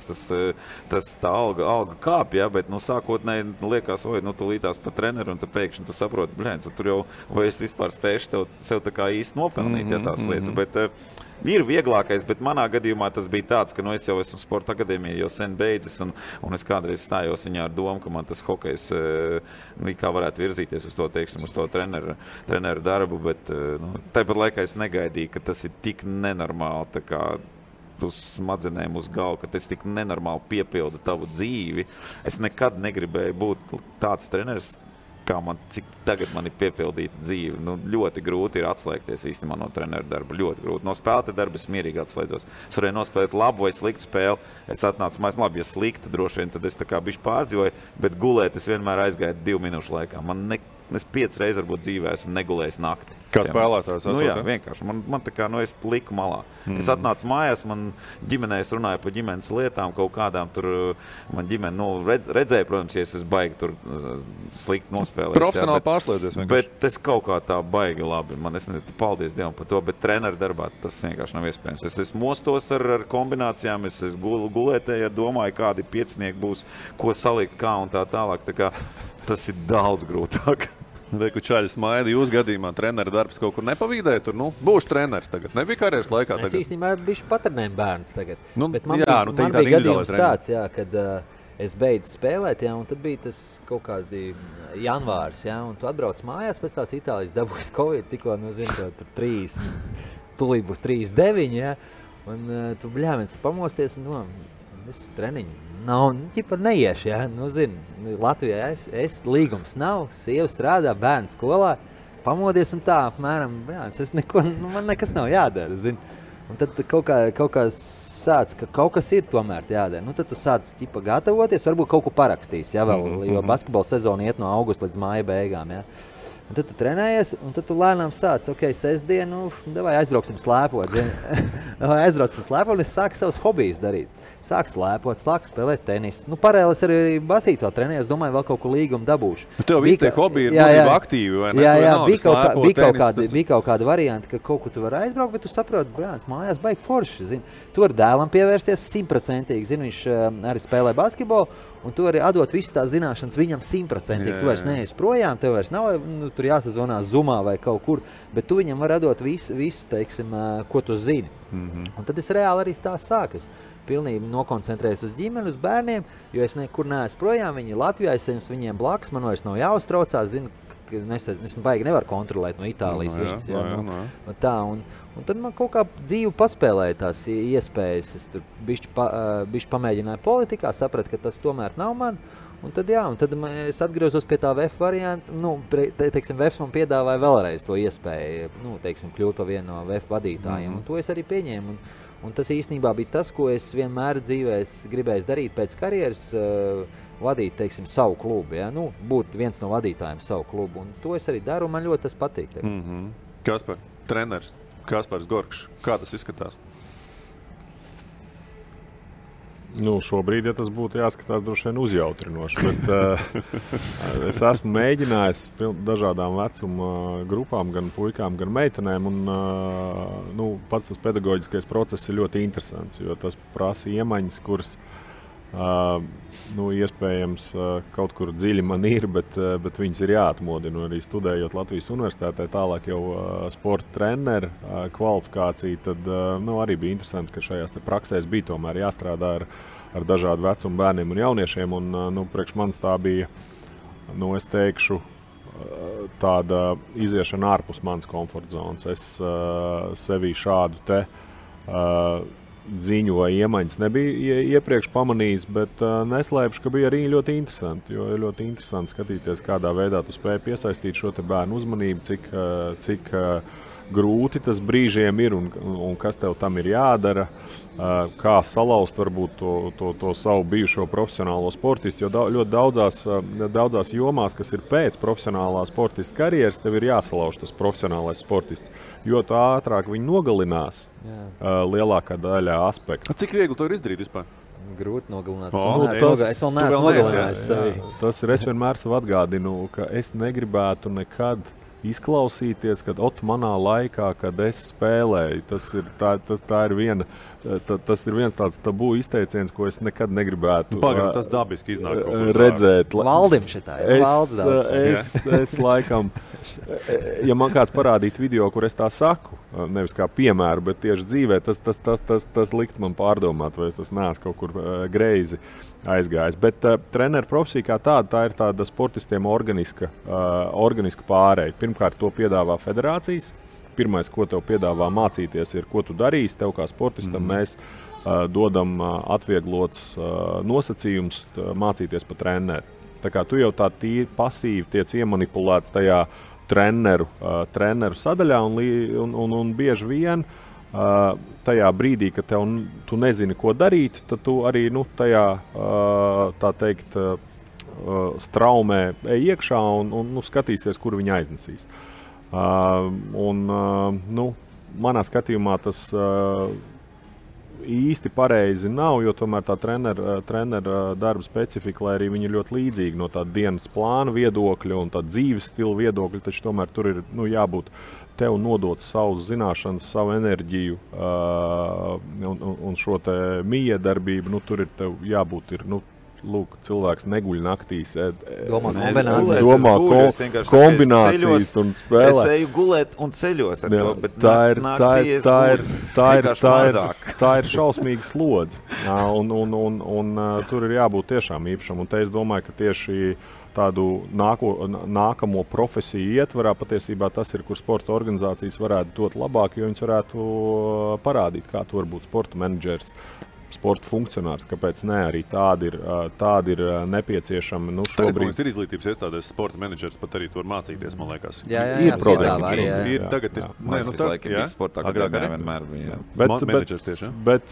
D: tā alga kāp, bet, sākotnēji liekas, tu lītās pa treneru, un tu pēkšņi tu saproti, tur jau, vai es vispār spēšu sev tā kā īsti nopelnīt, tās lietas, bet ir vieglākais, bet manā gadījumā tas bija tāds, ka es jau esmu sporta akadēmija jau sen beidzis, un es kādreiz stājos viņā ar domu, ka man tas hokejs kā varētu virzīties uz to, teiksim, uz to treneru darbu, bet tāpat laikā es negaidīju, ka tas ir tik nenormāli, tā kā uz smadzenēm uz galvu, ka tas tik nenormāli piepilda tavu dzīvi. Es nekad negribēju būt tāds treneris, kā cik tagad man ir piepildīta dzīve. Ļoti grūti ir atslēgties īstenībā no treneru darba. Ļoti grūti. No spēlētāja darba es mierīgi atslēdzos. Es varēju nospēlēt labu vai sliktu spēli. Es atnācu mājās, labi, ja sliktu droši vien, tad es tā kā bišķi pārdzīvoju, bet gulēt es vienmēr aizgāju 2 minūšu laikā. Es 5 reizes varbūt dzīvē esmu negulējis nakti.
F: Kā spēlētājs esot?
D: Jā, vienkārši. Man tā kā, es liku malā. Es atnācu mājās, man ģimenē, es runāju par ģimenes lietām, kaut kādām tur, man ģimene, redzēja, protams, ja es esmu baigi tur slikti nospēlēt.
F: Profesionāli pārslēdzies vienkārši.
D: Bet es kaut kā tā baigi labi, es nezinu, paldies Dievam par to, bet treneru darbā tas vienkārši nav iespējams. Es mostos ar kombinācijām, es gulētēju, domāju, kādi piecinieki būs, ko salikt, kā un tā tālāk. Tā kā tas ir daudz grūtāk.
F: Reku čaļi smaida, jūs gadījumā treneru darbs kaut kur nepavīdēja, tur, būšu treneris tagad. Nebija karjeras laikā tagad?
E: Es īstenībā bišķi patrenēju bērns tagad. Bet man
F: jā,
E: man bija gadījums tāds, kad es beidzu spēlēt, un tad bija tas kaut kādi janvārs, un tu atbrauc mājās pēc tās Itālijas dabūjas Covid, tikko, tur 3, tulīt būs 3-9, un tu bļāviens, tu pamosties, visu treniņu. Nav, neiešu, Latvijā es līgums nav, sieva strādā, bērns skolā, pamodies un tā, apmēram, man nekas nav jādara, Un tad kaut kā sāc, ka kaut kas ir tomēr jādara. Tad tu sāc gatavoties, varbūt kaut ko parakstīs, jo basketbola sezona iet no augusta līdz māja beigām, Un tad tu trenējies, un tad tu lēnām sāc, sestdienu, davai aizbrauksim slēpot, aizbrauksim slēpot, un es sāku savus hobijus darīt. sāk slēpot, sāk spēlēt tenisu. Nu, paralēli es arī basītu vēl trenēju, es domāju, vēl kaut ko līgumu dabūšu.
F: Tev visi tie hobiji ir būtībā aktīvi, vai ne?
E: Jā, bija kaut kāda varianta, ka kaut ko tu vari aizbraukt, bet tu saproti, brāns, mājās baigi forši, zini. Tu vari dēlam pievērsties 100%, zini, viņš arī spēlē basketbolu, un tu vari atdot visas tās zināšanas viņam 100%. Tu vairs neesi projām, tev vairs nav, nu, tur jāsazvanās Zoomā vai kaut kur, bet tu viņam vari atdot visu, teiksim, ko tu zini. Un tad es reāli arī tā sāku. Es pilnīgi nokoncentrējos uz ģimeni, uz bērniem, jo es nekur neesmu projām, viņi Latvijā, es viņiem blakus, man vairs nav jāuztraucās, zinu, ka es baigi nevaru kontrolēt no Itālijas līdz. Tā, un tad man kaut kā dzīve paspēlēja tās iespējas. Es tur bišķi pamēģināju politikā, sapratu, ka tas tomēr nav man. Un tad es atgriezos pie tā VF varianta. Nu, teiksim, VF man piedāvāja vēlreiz to iespēju, nu, teiksim, kļūt par vienu no VF vadītājiem. Un to es arī pieņēmu. Un tas īstenībā bija tas, ko es vienmēr dzīvē gribēju darīt pēc karjeras, vadīt, teiksim, savu klubu. Ja? Nu, būt viens no vadītājiem savu klubu. Un to es arī daru, un man ļoti tas patīk.
F: Kaspar, treneris. Kaspars Gorkšs. Kā tas izskatās?
C: Nu, šobrīd, ja tas būtu jāskatās, droši vien uzjautrinoši, bet es esmu mēģinājis dažādām vecuma grupām, gan puikām, gan meitenēm, un nu, pats tas pedagoģiskais process ir ļoti interesants, jo tas prasa iemaņas, kuras nu, iespējams kaut kur dziļi man ir, bet viņas ir jāatmodina. Arī studējot Latvijas universitātē, tālāk jau sporta treneru kvalifikāciju, tad nu, arī bija interesanti, ka šajās te praksēs bija tomēr jāstrādā ar dažādu vecumu bērniem un jauniešiem. Un, nu, priekš manis tā bija, nu, es teikšu, tāda iziešana ārpus manas komforta zonas. Es sevī šādu te ziņu vai iemaņas nebija iepriekš pamanījis, bet neslēpšu, ka bija arī ļoti interesanti. Jo ir ļoti interesanti skatīties, kādā veidā tu spēj piesaistīt šo te bērnu uzmanību, cik grūti tas brīžiem ir un kas tev tam ir jādara, kā salauzt varbūt to savu bijušo profesionālo sportistu, jo ļoti daudzās jomās, kas ir pēc profesionālā sportista karjeras, tev ir jāsalauž tas profesionālais sportists, jo tā ātrāk viņi nogalinās lielākā daļā aspektu.
F: Cik viegli to ir izdarīt vispār?
E: Grūti nogalināt.
C: Es
E: vēl neesmu nogalinājis sevi.
C: Tas ir, es vienmēr sev atgādinu, ka es negribētu nekad izklausīties, kad manā laikā, kad es spēlēju, tas ir viens tāds tabū izteiciens, ko es nekad negribētu
F: tas dabiski iznāk
C: redzēt.
E: Valdim šitā,
C: es laikam, ja man kāds parādītu video, kur es tā saku, nevis kā piemēru, bet tieši dzīvē, tas likt man pārdomāt, vai es tas neesmu kaut kur greizi aizgājis. Bet treneru profesija kā tāda, tā ir tāda sportistiem organiska pārēja. Pirmkārt, to piedāvā federācijas. Pirmais, ko tev piedāvā mācīties, ir, ko tu darīsi. Tev kā sportistam mēs dodam atvieglots nosacījums mācīties pa treneru. Tā kā tu jau tā tīri pasīvi tiec iemanipulēts tajā treneru sadaļā un bieži vien tajā brīdī, kad tu nezini, ko darīt, tad tu arī tajā, tā teikt, straumē ej iekšā un skatīsies, kur viņi aiznesīs. Manā skatījumā tas īsti pareizi nav, jo tomēr tā trenera darba specifika, lai arī viņi ir ļoti līdzīgi no tā dienas plāna viedokļa un tā dzīves stila viedokļa, taču tomēr tur ir jābūt tev nodot savus zināšanas, savu enerģiju un šo te miedarbību, tur ir tev jābūt lūk, cilvēks neguļ naktīs,
E: domā
C: kombinācijas un spēlē.
D: Es eju gulēt un ceļos ar to, bet
C: tā ir šausmīga slodze. Un tur ir jābūt tiešām īpašam. Un te es domāju, ka tieši tādu nākamo profesiju ietvarā patiesībā tas ir, kur sporta organizācijas varētu dot labāk, jo viņas varētu parādīt, kā tu var būt sporta menedžers, sporta funkcionārs, kāpēc ne, arī tādi ir nepieciešami.
F: Šobrīd ir izglītības iestādēs sporta menedžers, pat arī tu var mācīties, man liekas.
E: Jā,
C: ir programma.
F: Tagad ir,
D: mēs visu laiku bija sportā, kad vienmēr bija.
F: Menedžers tieši,
C: bet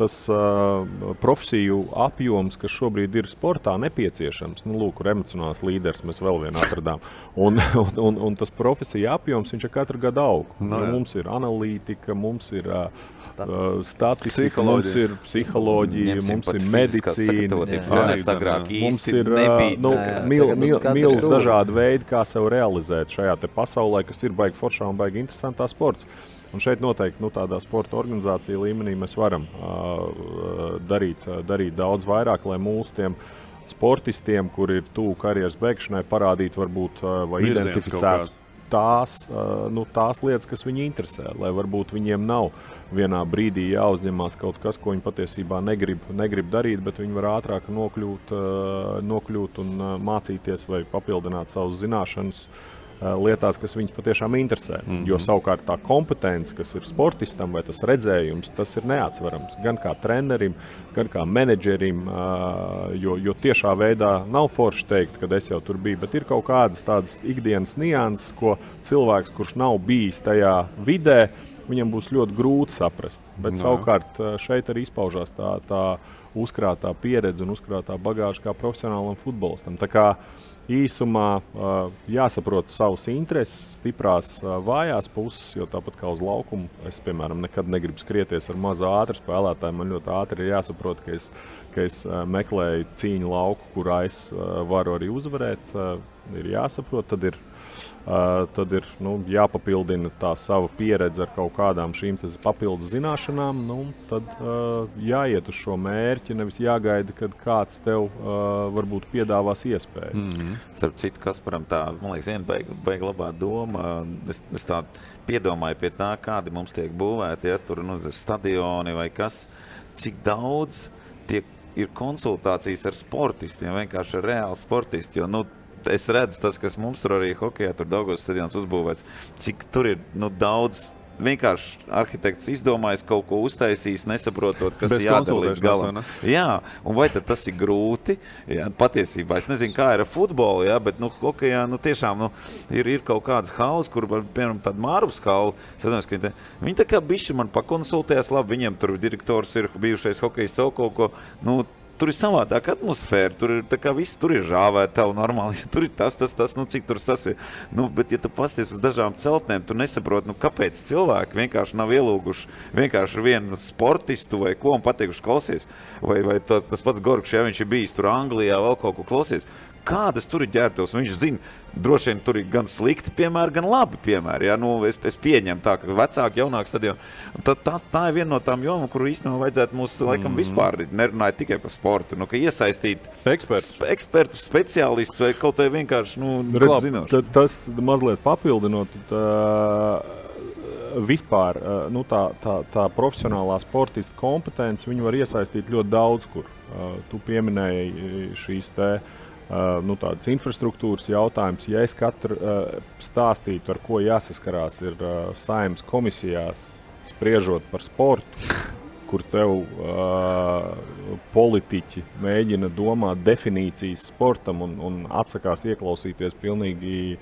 C: tas profesiju apjoms, kas šobrīd ir sportā nepieciešams, lūk, emocionāls līderis mēs vēl vienu atradām, un tas profesiju apjoms, viņš ir katru gadu aug. Mums ir analītika, mums ir statistika, mums ir psiholoģija, mums ir medicīna, mums ir milz dažādi veidi, kā sev realizēt šajā te pasaulē, kas ir baigi foršā un baigi interesantā sports. Un šeit noteikti tādā sporta organizācija līmenī mēs varam darīt daudz vairāk, lai mūsu tiem sportistiem, kuri ir tuvu karjeras beigšanai, parādītu varbūt vai identificētu tās lietas, kas viņu interesē, lai varbūt viņiem nav vienā brīdī jāuzņemās kaut kas, ko viņi patiesībā negrib darīt, bet viņi var ātrāk nokļūt un mācīties vai papildināt savas zināšanas lietās, kas viņus patiešām interesē. Jo savukārt tā kompetence, kas ir sportistam vai tas redzējums, tas ir neatsverams. Gan kā trenerim, gan kā menedžerim, jo tiešā veidā nav forši teikt, kad es jau tur biju, bet ir kaut kādas tādas ikdienas nianses, ko cilvēks, kurš nav bijis tajā vidē, viņam būs ļoti grūti saprast. Bet savukārt šeit arī izpaužās tā uzkrātā pieredze un uzkrātā bagāža kā profesionālam futbolistam. Tā kā īsumā jāsaprot savas intereses, stiprās vājās puses, jo tāpat kā uz laukumu, es, piemēram, nekad negribu skrieties ar mazu ātru spēlētāju. Man ļoti ātri ir jāsaprot, ka es meklēju cīņu lauku, kurā es varu arī uzvarēt. Ir jāsaprot, tad ir jāpapildina tā sava pieredze ar kaut kādām šīm papildus zināšanām. Tad jāiet uz šo mērķi, nevis jāgaida, kad kāds tev varbūt piedāvās iespēju.
D: Starp citu, Kasparam tā, man liekas, viena baigi labā doma. Es tā piedomāju pie tā, kādi mums tiek būvēti, tur stadioni vai kas, cik daudz ir konsultācijas ar sportistiem, vienkārši ar reāli sportisti, jo es redzu tas, kas mums tur arī hokejā, tur Daugavas stadions uzbūvēts, cik tur ir vienkārši arhitekts izdomājis kaut ko uztaisījis, nesaprotot, kas ir jādara līdz galam. Jā, un vai tad tas ir grūti? Jā, patiesībā, es nezinu, kā ir ar futbolu, jā, bet hokejā tiešām ir kaut kādas halas, kur, piemēram, tāda Mārvas hala, viņi tā kā bišķi man pakonsultējās, labi, viņiem tur direktors ir bijušais hokejists kaut ko, tur ir savādāka atmosfēra, tur ir tā kā viss, tur ir žāvētavu normāli, tur ir tas, cik tur sasvien. Bet, ja tu pasties uz dažām celtnēm, tu nesaproti, kāpēc cilvēki vienkārši nav ielūguši vienkārši vienu sportistu vai ko un pateikuši klausies. Vai tas pats Gorkšs, ja viņš ir bijis tur Anglijā, vēl kaut ko klausies. Kādas tur ir ģērbtos? Viņš zina, droši vien tur ir gan slikti piemēri, gan labi piemēri. Ja? Es pieņemu tā, ka vecāki, jaunāki stadioni. Tā ir viena no tām jomām, kuru īstenībā vajadzētu mūs laikam vispār nerunāt tikai par sportu. Ka iesaistīt ekspertus, speciālistus vai kaut vai vienkārši zinoši.
C: Tas mazliet papildinot, vispār tā profesionālā sportista kompetence, viņu var iesaistīt ļoti daudz kur. Tu pieminēji šīs tādas infrastruktūras jautājums. Ja es katru stāstītu, ar ko jāsaskarās ir Saeimas komisijās, spriežot par sportu, kur tev politiķi mēģina domāt definīcijas sportam un atsakās ieklausīties pilnīgi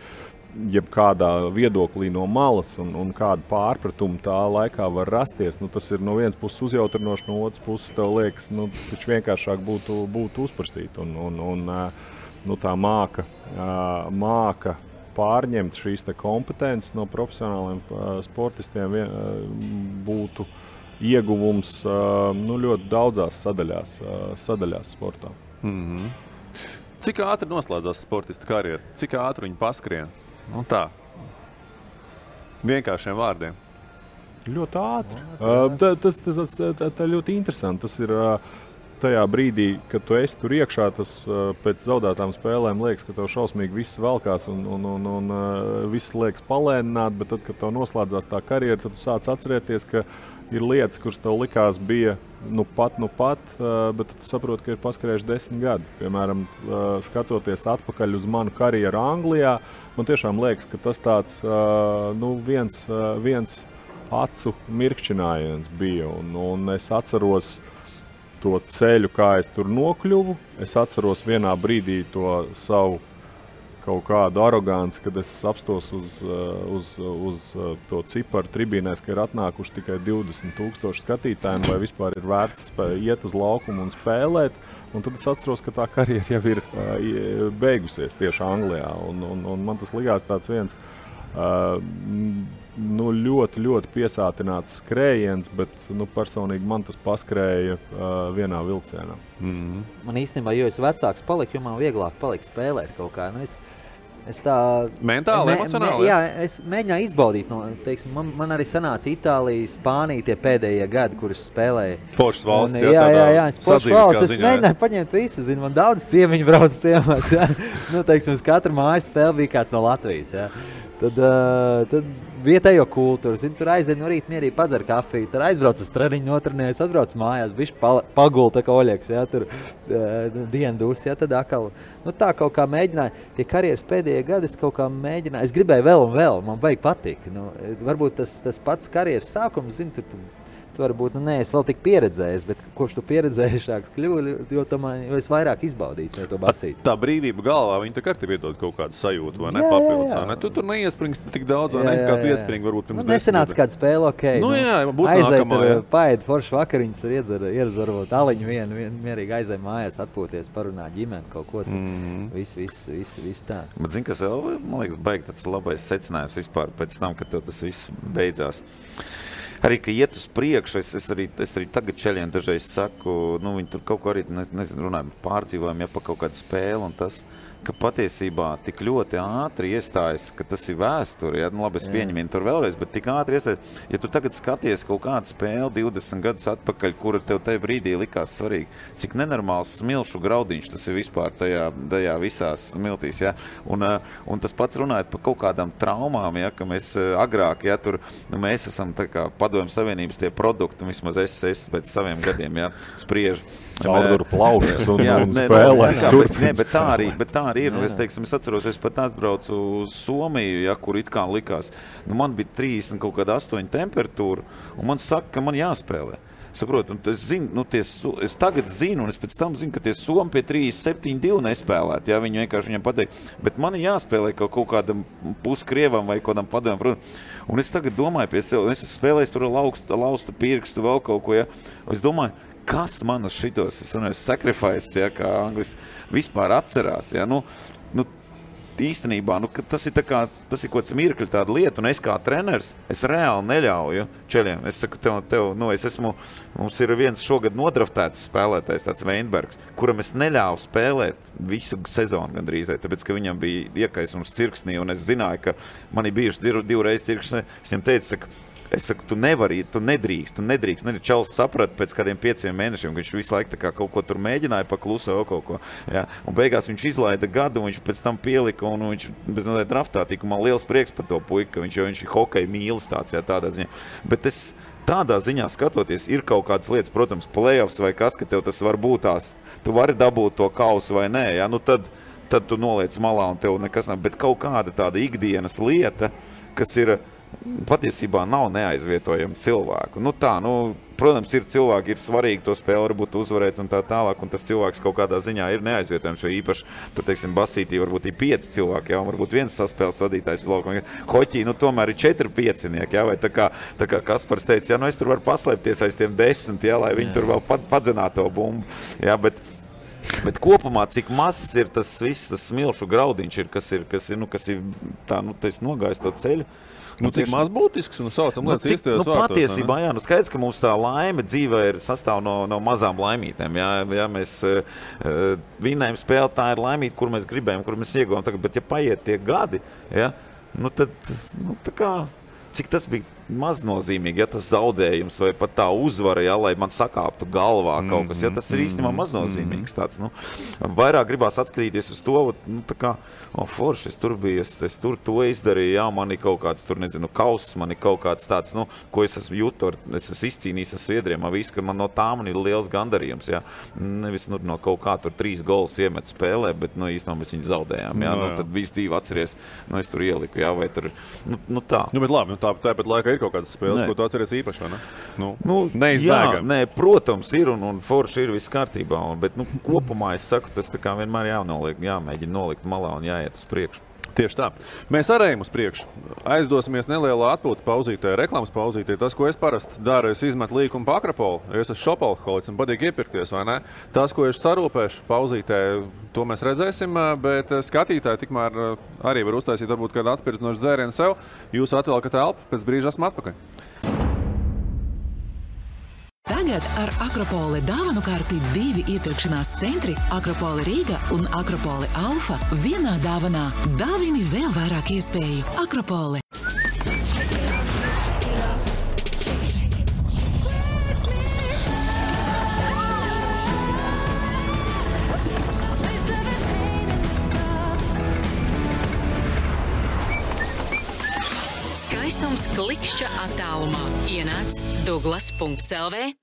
C: jebkādā viedoklī no malas un kādu pārpratumu tā laikā var rasties. Tas ir no vienas puses uzjautrinoši, no otras puses tev liekas, taču vienkāršāk būtu uzprasīt. Tā māka pārņemt šīs kompetences no profesionāliem sportistiem būtu ieguvums ļoti daudzās sadaļās sportā.
F: Cik ātri noslēdzās sportista karjera? Cik ātri viņi paskrien? Tā. Vienkāršiem vārdiem.
C: Ļoti ātri. Tas ļoti interesanti. Tas ir tajā brīdī, kad tu esi tur iekšā, tas pēc zaudētām spēlēm liekas, ka tev šausmīgi viss velkās un viss liekas palēnināt, bet tad, kad tev noslēdzās tā karjera, tad tu sāc atcerēties, ka ir lietas, kuras tev likās bija nu pat, bet tu saproti, ka ir paskrējuši 10 gadi. Piemēram, skatoties atpakaļ uz manu karjeru Anglijā, man tiešām liekas, ka tas tāds viens acu mirkšķinājiens bija, un es atceros to ceļu, kā es tur nokļuvu. Es atceros vienā brīdī to savu kaut kādu aroganci, kad es apstos uz to ciparu tribīnēs, ka ir atnākuši tikai 20,000 skatītājiem, vai vispār ir vērts iet uz laukumu un spēlēt. Un tad es atceros, ka tā karjera jau ir beigusies tieši Anglijā. Un man tas likās tāds viens ļoti, ļoti piesātināts skrējiens, bet personīgi man tas paskrēja vienā vilcienā.
E: Man īstenībā, jo es vecāks paliku, jo man vieglāk palika spēlēt kaut kā. Es tā
F: mentāli, emocionāli?
E: Jā, es mēģināju izbaudīt. Teiksim, man arī sanāca Itālija, Spānija tie pēdējie gadi, kurus spēlēja.
F: Foršas valsts,
E: jā, es foršas valsts. Es mēģināju paņemt visu, man daudz ciemiņu brauc ciemās. Teiksim, uz katru mājas spēli bija kāds no Latvijas. Jā. Tad vietējo kultūru, tur aizēja no rīta mierīgi padzer kafiju, tur aizbrauc uz treniņu, notrenējas, atbrauc mājās, bišķi pagul, tā kā Oļeks, tur dienu dus, tad atkal, tā kaut kā mēģināja, tie karjeras pēdējie gadi es kaut kā mēģināju, es gribēju vēl un vēl, man vajag patīk, varbūt tas pats karjeras sākums, tu varbūt, es vēl tik pieredzējis, bet kopš tu pieredzējušāks kļuvi, jo es vairāk izbaudītu to basīti.
F: Tā brīvība galvā, viņa tā kā tev iedod kaut kādu sajūtu, vai ne, papildus, vai ne? Tu tur neiespringsti tik daudz, vai ne, kā tu iespringi varbūt pirms 10
E: nesenāca kāda spēle,
F: būs nākamā,
E: jā. Paēd forši vakariņas, tur iedzer varbūt aliņu vienu, mierīgi aizēja mājās, atpūties, parunāt ģimeni, kaut ko viss tā.
D: Bet zini, kas vēl, man liekas, baigi tāds labais secinājums vispār pēc tam, kad tev tas viss beidzās. Arī, ka iet uz priekšu, es arī tagad čeļiem dažreiz saku, viņi tur kaut ko arī, runāju, pārdzīvojam, pa kaut kādu spēli un tas, ka patiesībā tik ļoti ātri iestājas, ka tas ir vēsture, labi, es pieņemu tur vēlreiz, bet tik ātri iestājas, ja tu tagad skaties kaut kādu spēli 20 gadus atpakaļ, kura tev tajā brīdī likās svarīgi, cik nenormāls smilšu graudiņš tas ir vispār tajā visās smiltīs, ja? Un tas pats runājot par kaut kādām traumām, ja, ka mēs agrāk, ja, tur, mēs esam tā kā Padomju Savienības tie produkti, vismaz es pēc saviem gadiem, ja, spriežu.
C: Caurduru plaušas un spēlē.
D: Bet tā arī ir. Es atceros, es pat atbraucu uz Somiju, ja, kur it kā likās. Man bija 30 kaut kāda 8 temperatūra, un man saka, ka man jāspēlē. Saprotu, es tagad zinu, un es pēc tam zinu, ka tie Somi pie 37-2 nespēlēt, ja, viņi vienkārši viņam pateikt, bet man jāspēlē kaut kādam puskrievam vai kādam padomam. Un es tagad domāju pie sev, es spēlēju tur laustu pirkstu, vēl kaut ko, ja. Es domāju, kas man uz šitos, sacrifice, ja, kā anglis, vispār atcerās, ja, īstenībā, tas ir kaut kāds mirkļi tāda lieta, un es kā treneris, es reāli neļauju čeļiem. Es saku tev, mums ir viens šogad nodraftēts spēlētājs, tāds Veinbergs, kuram es neļāvu spēlēt visu sezonu gandrīz, tāpēc, ka viņam bija iekaisums cirksnī, un es zināju, ka man ir bijuši divreiz cirksnī. Es viņam teicu, es saku, tu nedrīkst. Čalis saprata pēc kādiem 5 mēnešiem, ka viņš visu laiku kaut ko tur mēģināja pakluso vēl kaut ko. Ja? Un beigās viņš izlaida gadu, un viņš pēc tam pielika, un viņš bez noteikti draftā tika. Man liels prieks par to puiku, ka viņš ir hokeja mīlis tāds, jā, tādā ziņā. Bet es tādā ziņā skatoties, ir kaut kādas lietas, protams, playoffs vai kas, ka tev tas var būt tās, tu vari dabūt to kausu vai nē, ja? Tad tu noliec malā un tev nekas nav. Bet kaut kāda tāda ikdienas lieta, kas ir patiesībā nav neaizvietojama cilvēku. Protams, ir cilvēki, ir svarīgi to spēli varbūt uzvarēt un tā tālāk, un tas cilvēks kaut kādā ziņā ir neaizvietojams, jo īpaši, tur, teiksim, basītī varbūt ir 5 cilvēki, jā, un varbūt viens saspēles vadītājs uz laukumu. Hoķī, tomēr ir 4 piecinieki, jā, vai tā kā Kaspars teica, jā, es tur varu paslēpties aiz tiem 10, jā, lai viņi tur vēl padzinātu to bumbu, jā, bet kopumā, cik mazs ir tas viss, tas smilšu graudiņš ir, kas ir tā, tas nogājis to ceļu.
F: Cik maz būtisks, saucam lietas īstajos vārtos.
D: Patiesībā, jā, skaidrs, ka mums tā laime dzīvē ir sastāv no mazām laimītēm. Jā, mēs vinējam spēli, tā ir laimīta, kur mēs gribējam, kur mēs ieguvām. Bet ja paiet tie gadi, jā, tad, tā kā, cik tas bija maznozīmīgi, ja tas zaudējums vai pat tā uzvara, ja, lai man sakāptu galvā kaut kas, ja tas ir īstenībā maznozīmīgs tāds, vairāk gribās atskatīties uz to, tā kā, forši, es tur biju, es tur to izdarīju, jā, man ir kaut kāds, tur, nezinu, kauss, man ir kaut kāds tāds, ko es esmu jūtu, es esmu izcīnījis ar sviedriem, visu, ka man no tā man ir liels gandarījums, jā, nevis, no kaut kā tur 3 golus iemet spēlē, bet, īstenībā mēs viņu zaudējām, jā, tad visu dzīvi atceries, es tur ieliku, jā, vai tur, tā.
F: Bet labi, tāpat laikā ir kaut kādas spēles, ko tu atceries īpaši, vai ne?
D: Jā, nē, protams, ir un forši ir viss kārtībā, bet kopumā es saku, tas tā kā vienmēr jāmēģina nolikt malā un jāiet uz priekšu.
F: Tieši tā. Mēs arī ejam uz priekšu. Aizdosimies nelielā atpūtas pauzītē, reklāmas pauzītē. Tas, ko es parasti daru, es izmetu līkumu pa Akropolu. Es esmu šopalholiks un patīk iepirkties, vai ne? Tas, ko es sarūpēšu pauzītē, to mēs redzēsim, bet skatītāji tikmēr arī var uztaisīt varbūt kādu atspirdzinošu dzērienu sev. Jūs atvēlkat elpu, pēc brīža esmu atpakaļ.
A: Tagad ar Akropoli dāvanu karti 2 iepirkšanās centri Akropoli Rīga un Akropoli Alfa vienā dāvanā. Dāvini vēl vairāk iespēju. Akropoli.
H: Skaistums klikšķa attālumā. Ienāc Douglas.lv.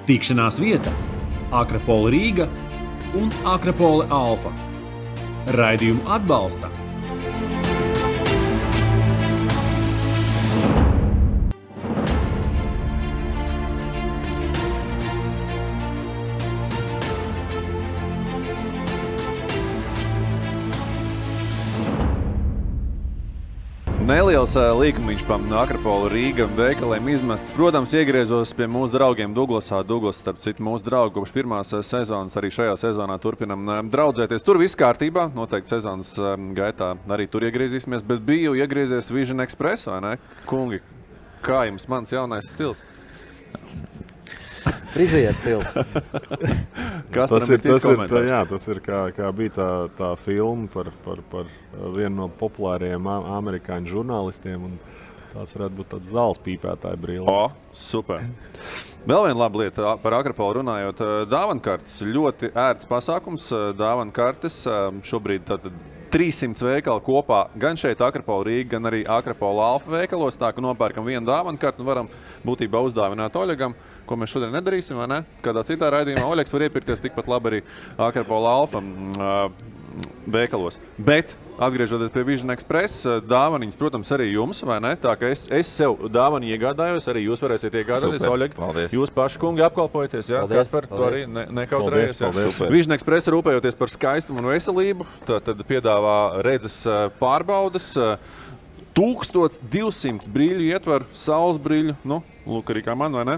B: Tikšanās vieta Akropoli Rīga un Akropoli Alfa. Raidījumu atbalsta
F: Neliels līkumiņš pa Akropoli Rīga veikaliem izmests. Protams, iegriezos pie mūsu draugiem Douglasā. Douglas, starp citu, mūsu draugi kopš pirmās sezonas, arī šajā sezonā turpinam draudzēties. Tur viss kārtībā, noteikti sezonas gaitā arī tur iegriezīsimies, bet biju iegriezies Vision Express, vai ne? Kungi, kā jums mans jaunais stils?
E: Frizieru stils.
C: Tas ir kā bija tā filma par vienu no populārajiem amerikāņu žurnālistiem, un tās varētu būt tāds zāles pīpētāja brilles.
F: Super. Vēl viena laba lieta par Akropoli runājot. Dāvankartes ļoti ērts pasākums. Dāvankartes šobrīd tātad 300 veikali kopā, gan šeit Akropoli Rīga, gan arī Akropoli Alfa veikalos. Tā, ka nopērkam vienu dāvankartu un varam būtībā uzdāvināt Oļegam, ko mēs šodien nedarīsim, vai ne? Kādā citā raidījumā Oļegs var iepirkties tikpat labi arī Akropoli Alfa veikalos. Bet, atgriežoties pie Vision Express, dāvaniņas, protams, arī jums, vai ne? Tā, ka es sev dāvani iegādājos, arī jūs varēsiet iegādāties, Oļeg. Jūs paši, kungi, apkalpojaties, jā? Kaspar, to arī nekautrējies. Vision Express rūpējoties par skaistumu un veselību, tad piedāvā redzes pārbaudas, 1200 brīļu ietver, saules brīļu, lūk arī kā man, vai ne?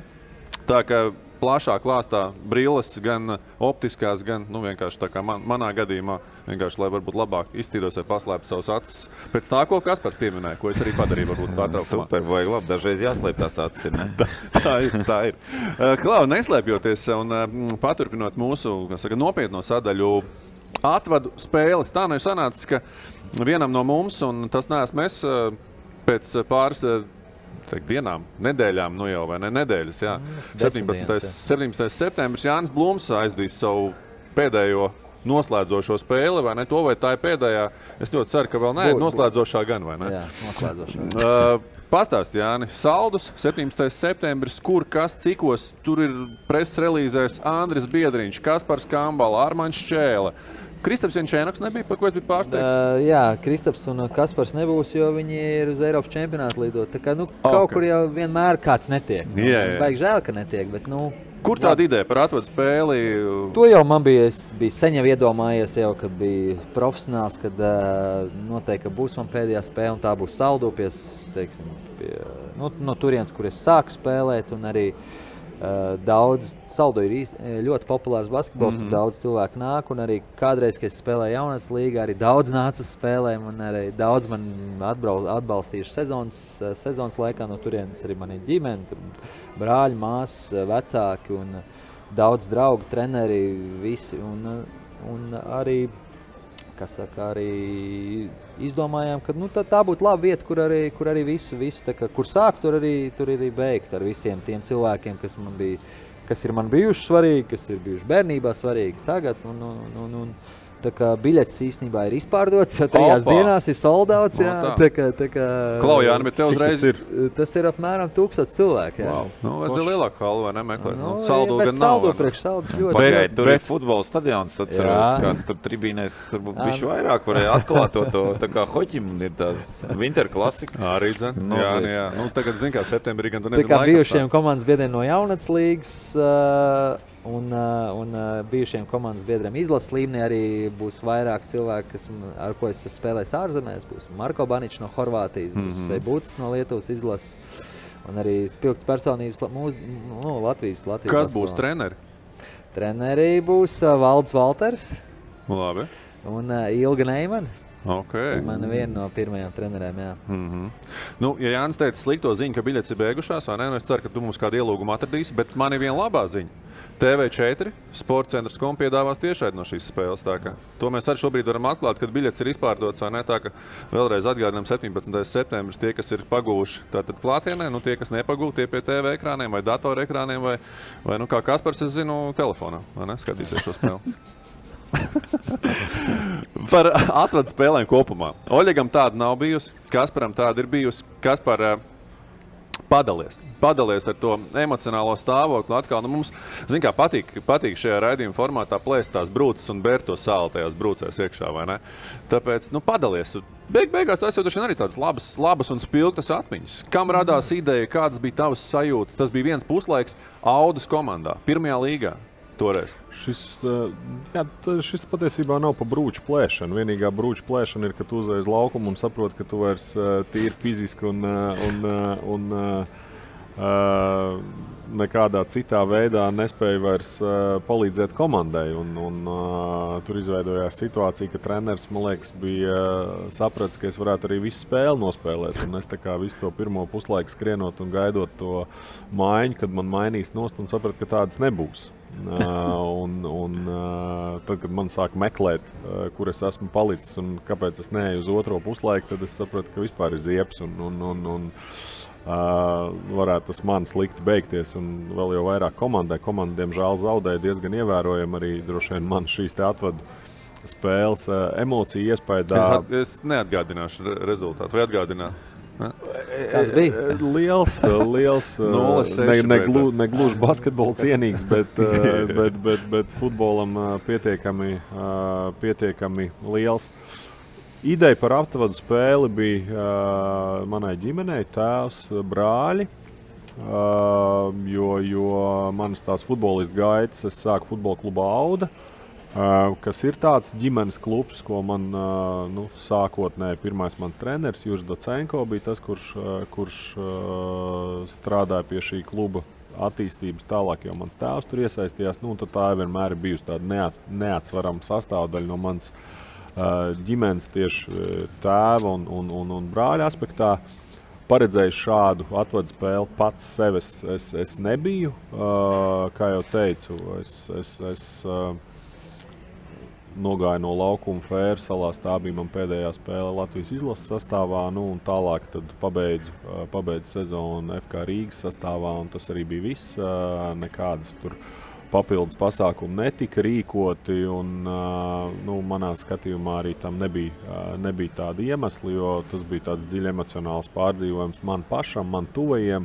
F: Tā kā plašā klāstā brilles, gan optiskās, gan vienkārši tā kā manā gadījumā, vienkārši, lai varbūt labāk iztīros vai paslēptu savus acis. Pēc tā, ko Kaspar pieminēja, ko es arī padarīju, varbūt pārtraukumā.
D: Super, vajag labi, dažreiz jāslēp tās acis, ir, ne?
F: tā ir. Klau, neslēpjoties un paturpinot mūsu, nopietno sadaļu, atvadu spēles. Tā ir sanācis, ka vienam no mums, un tas neesmu es, pēc pāris dienām, nedēļām, jau vai ne nedēļas, jā. 17. septembris Jānis Blūms aizdīs savu pēdējo noslēdzošo spēli, vai ne? To vai tā ir pēdējā? Es ļoti ceru, ka vēl ne, noslēdzošā gan, vai ne?
E: Jā, noslēdzošā.
F: Pastāst, Jāni, saldus, 17. septembris, kur, kas, cikos, tur ir preses relīzēs Andris Biedriņš, Kaspars Kambala, Armaņš Čēle. Kristaps Jančēnoks nebija, par ko es biju pārsteigts?
E: Jā, Kristaps un Kaspars nebūs, jo viņi ir uz Eiropas čempionātu lidot. Tā kā, kaut kur jau vienmēr kāds netiek. Vajag žēl, ka netiek, bet,
F: Kur tāda ideja par atvadu spēli?
E: To jau man bija, es biju sen jau iedomājies, kad biju profesionāls, kad noteikti, ka būs man pēdējā spēle, un tā būs Saldupies, teiksim, no turienes, kur es sāku spēlēt, un arī daudz, Saldo ir ļoti populārs basketbols, daudz cilvēku nāk, un arī kādreiz, kad es spēlēju jaunatnes līgā, arī daudz nāca spēlēm, un arī daudz man atbalstījuši sezonas laikā no turienes arī mani ģimeni, brāļi, māsas, vecāki un daudz draugu, treneri, visi, un arī, arī izdomājām, ka tā būtu laba vieta, kur arī visu kur sākt, tur arī beigt ar visiem tiem cilvēkiem, kas ir man bijuši svarīgi, kas ir bijuši bērnībā svarīgi tagad. Tā kā biļetes īstenībā ir izpārdots, jo 3 dienās ir soldauts.
F: Klau, Jāni, bet tev uzreiz
C: ir?
E: Tas ir apmēram 1000 cilvēki. Jā.
C: Wow.
F: Nu, vajadzēja lielāku halu, vai nemeklēt?
E: Nu,
F: Saldu
E: bet
F: gan nav.
E: saldu priekš saldas ļoti.
D: Pagaid, tur ir futbola stadions, atceros,
E: Jā.
D: kā tur tribīnēs tur būtu bišķi vairāk, varēja atklāt to, tā kā hoķim ir tās Winter klasika.
F: Arī, zin?
D: Nu,
F: Jā. Nu, tagad, zin kā, septembrī gan tu nezinu
E: Tā kā
F: laikam
E: bijušiem komandas biedriem no jaunats līgas un bijušiem komandas biedriem izlases līmenī arī būs vairāk cilvēki, ar ko es spēlēju ārzemēs. Būs Marko Baničs no Horvātijas, būs Seibutis no Lietuvas izlases un arī spilgts personības Latvijas.
F: Kas būs treneri?
E: Treneri būs Valds Valters
F: Labi.
E: un Ilga Neimana.
F: Okay.
E: Man viena no pirmajām trenerēm, jā.
F: Nu, ja Jānis teica slikto ziņu, ka biļetes ir beigušās, vai ne? Es ceru, ka tu mums kādu ielūgumu atradīsi, bet man ir viena labā ziņa. TV4 sportcentrs.com piedāvās tiešraidi no šīs spēles. To mēs arī šobrīd varam atklāt, kad biļetes ir izpārdotas, vai ne? Tā ka vēlreiz atgādinām 17. septembris tie, kas ir pagūši tātad klātienē, nu tie, kas nepagūti, tie pie TV ekrāniem vai datora ekrāniem vai nu kā Kaspars, es zinu, telefonā, vai ne? Skatīsies šo spēli. Par atvadu spēlēm kopumā. Oļegam tāda nav bijusi, Kasparam tāda ir bijusi. Kaspar, padalies ar to emocionālo stāvokli. Atkal, nu mums, zin kā, patīk šajā raidījuma formātā plēst tās brūces un bērt to sāli tajās brūcēs iekšā, vai ne? Tāpēc, nu, padalies. Beigās tas jau arī tādas labas un spilgtas atmiņas. Kam radās ideja, kādas bija tavas sajūtas? Tas bija viens puslaiks Audus komandā, pirmajā līgā. Toreiz.
C: Šis patiesībā nav pa brūču plēšanu. Vienīgā brūču plēšana ir, ka tu uzreiz laukumu un saproti, ka tu vairs tīri fiziski un nekādā citā veidā nespēja vairs palīdzēt komandai. Tur izveidojās situācija, ka treneris, man liekas, bija sapratis, ka es varētu arī visu spēli nospēlēt. Un es tā kā visu to pirmo puslaiku skrienot un gaidot to maiņu, kad man mainīs nost un sapratu, ka tādas nebūs. Tad, kad man sāk meklēt, kur es esmu palicis un kāpēc es neeju uz otro puslaiku, tad es sapratu, ka vispār ir ziepes un varētu tas man slikti beigties. Un vēl jau vairāk komandai. Komanda, diemžēl, zaudēja diezgan ievērojami arī droši vien man šīs te atvadu spēles emociju iespaidā.
F: Es neatgādināšu rezultātu. Vai atgādināt?
E: Kāds bija?
C: Liels, negluži basketbola cienīgs, bet futbolam pietiekami liels. Ideja par aptvadu spēli bija manai ģimenei, tēvs, brāļi, jo manas tās futbolistu gaitas, es sāku futbola klubu Auda, kas ir tāds ģimenes klubs, ko man sākotnēji pirmais mans treneris Juris Docenko bija tas, kurš strādāja pie šī kluba attīstības tālāk, jo mans tēvs tur iesaistījās. Tad tā vienmēr ir bijusi tāda neatsvarama sastāvdaļa no manas ģimenes tieši tēva un brāļa aspektā. Paredzējis šādu atvadu spēli pats sevi es nebiju. Kā jau teicu, es nogāju no laukuma Fēru salās. Tā bija man pēdējā spēle Latvijas izlases sastāvā. Un tālāk tad pabeidzu sezonu FK Rīgas sastāvā. Un tas arī bija viss. Nekādas tur papildus pasākumi netika rīkoti. Manā skatījumā arī tam nebija tāda iemesla, jo tas bija tāds dziļi emocionāls pārdzīvojums man pašam, man tuvajiem.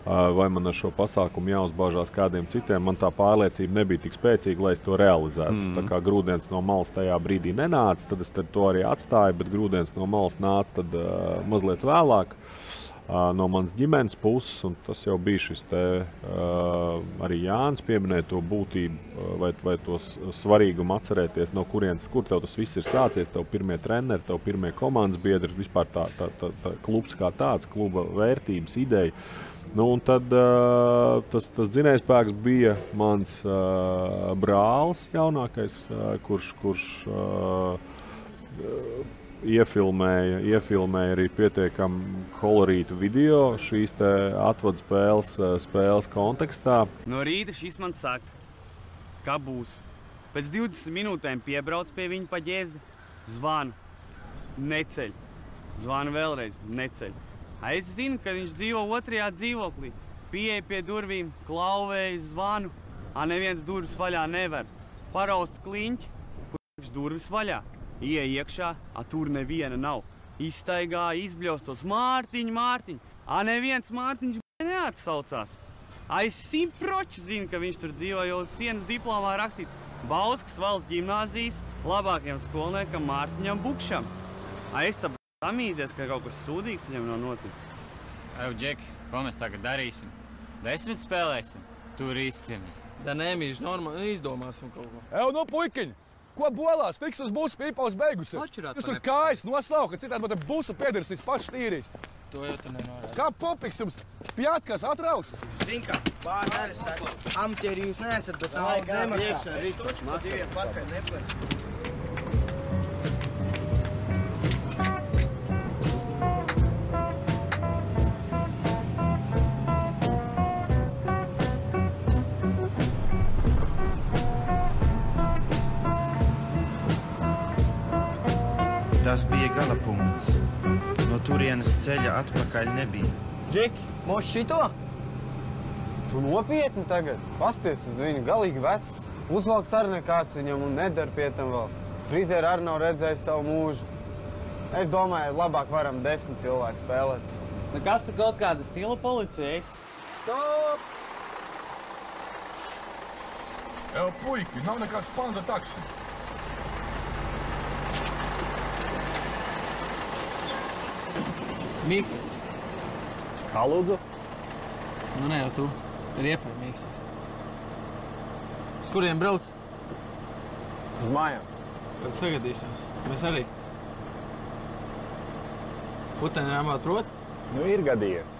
C: Vai man ar šo pasākumu jāuzbāžās kādiem citiem, man tā pārliecība nebija tik spēcīga, lai es to realizētu. Tā kā grūdienis no malas tajā brīdī nenāca, tad es to arī atstāju, bet grūdienis no malas nāca tad mazliet vēlāk no manas ģimenes puses, un tas jau bija šis te, arī Jānis pieminēja to būtību vai to svarīgumu atcerēties, no kur tev tas viss ir sācies, tev pirmie treneri, tev pirmie komandas biedri, vispār tā klubs kā tāds, kluba vērtības, ideja. Un tad tas dzinējspēks bija mans brālis jaunākais, kurš iefilmēja arī pietiekami kolorītu video šīs te atvadu spēles kontekstā.
I: No rīta šis man saka, ka būs. Pēc 20 minūtēm piebrauc pie viņa pa ģēzdi, zvanu, neceļ. Zvanu vēlreiz, neceļ. Es zinu, ka viņš dzīvo otrajā dzīvoklī. Pieeja pie durvīm, klauvēju, zvanu. Neviens durvis vaļā nevar. Paraust kliņķi, kur durvis vaļā. Ieej iekšā, tur neviena nav. Izstaigāja, izbļaustos Mārtiņ. Neviens Mārtiņš neatsaucās. Es 100% zinu, ka viņš tur dzīvo, jo uz sienas diplomā rakstīts Bauskas valsts ģimnāzijas labākajam skolniekam Mārtiņam Bukšam. Es tā samīzies, ka kaut kas sūdīgs viņam nav noticis.
J: Džeki, ko mēs tagad darīsim? 10 spēlēsim? Tur īstenībā.
K: Da nemīž, normāli izdomāsim kaut ko.
L: Nu, puikiņi! Ko bolās? Fiks uz busu pīpaus beigusies. Jūs tur kājas noslauka, ka citādi man te busu piedarasīs paši tīrīs.
K: To jau tu nenorādi.
L: Kā popiks jums pjātkās atraušu?
K: Zin kā, vārdi arī saka, amtieri jūs neesat, bet naudu nemaksā. Viss taču pa diviem pakaļ neplēc.
M: Tas bija galapunkts. No turienes ceļa atpakaļ nebija.
K: Džeki, mūs šito? Tu nopietni tagad? Pasties uz viņu, galīgi vecs. Uzvalks arī nekāds viņam un nedara pie tam vēl. Frizēri arī nav redzējis savu mūžu. Es domāju, labāk varam 10 cilvēku spēlēt.
I: Kas tu kaut kāda stila policijas?
K: Stop!
L: Puiki, nav nekāds panda taksi.
K: Mīksties.
L: Kā lūdzu?
K: Nu ne jau tu. Riepai mīksties. Uz kuriem brauc?
L: Uz mājām.
K: Tad sagadīšanās. Mēs arī. Futeni rāmāt prot?
L: Nu, ir gadījies.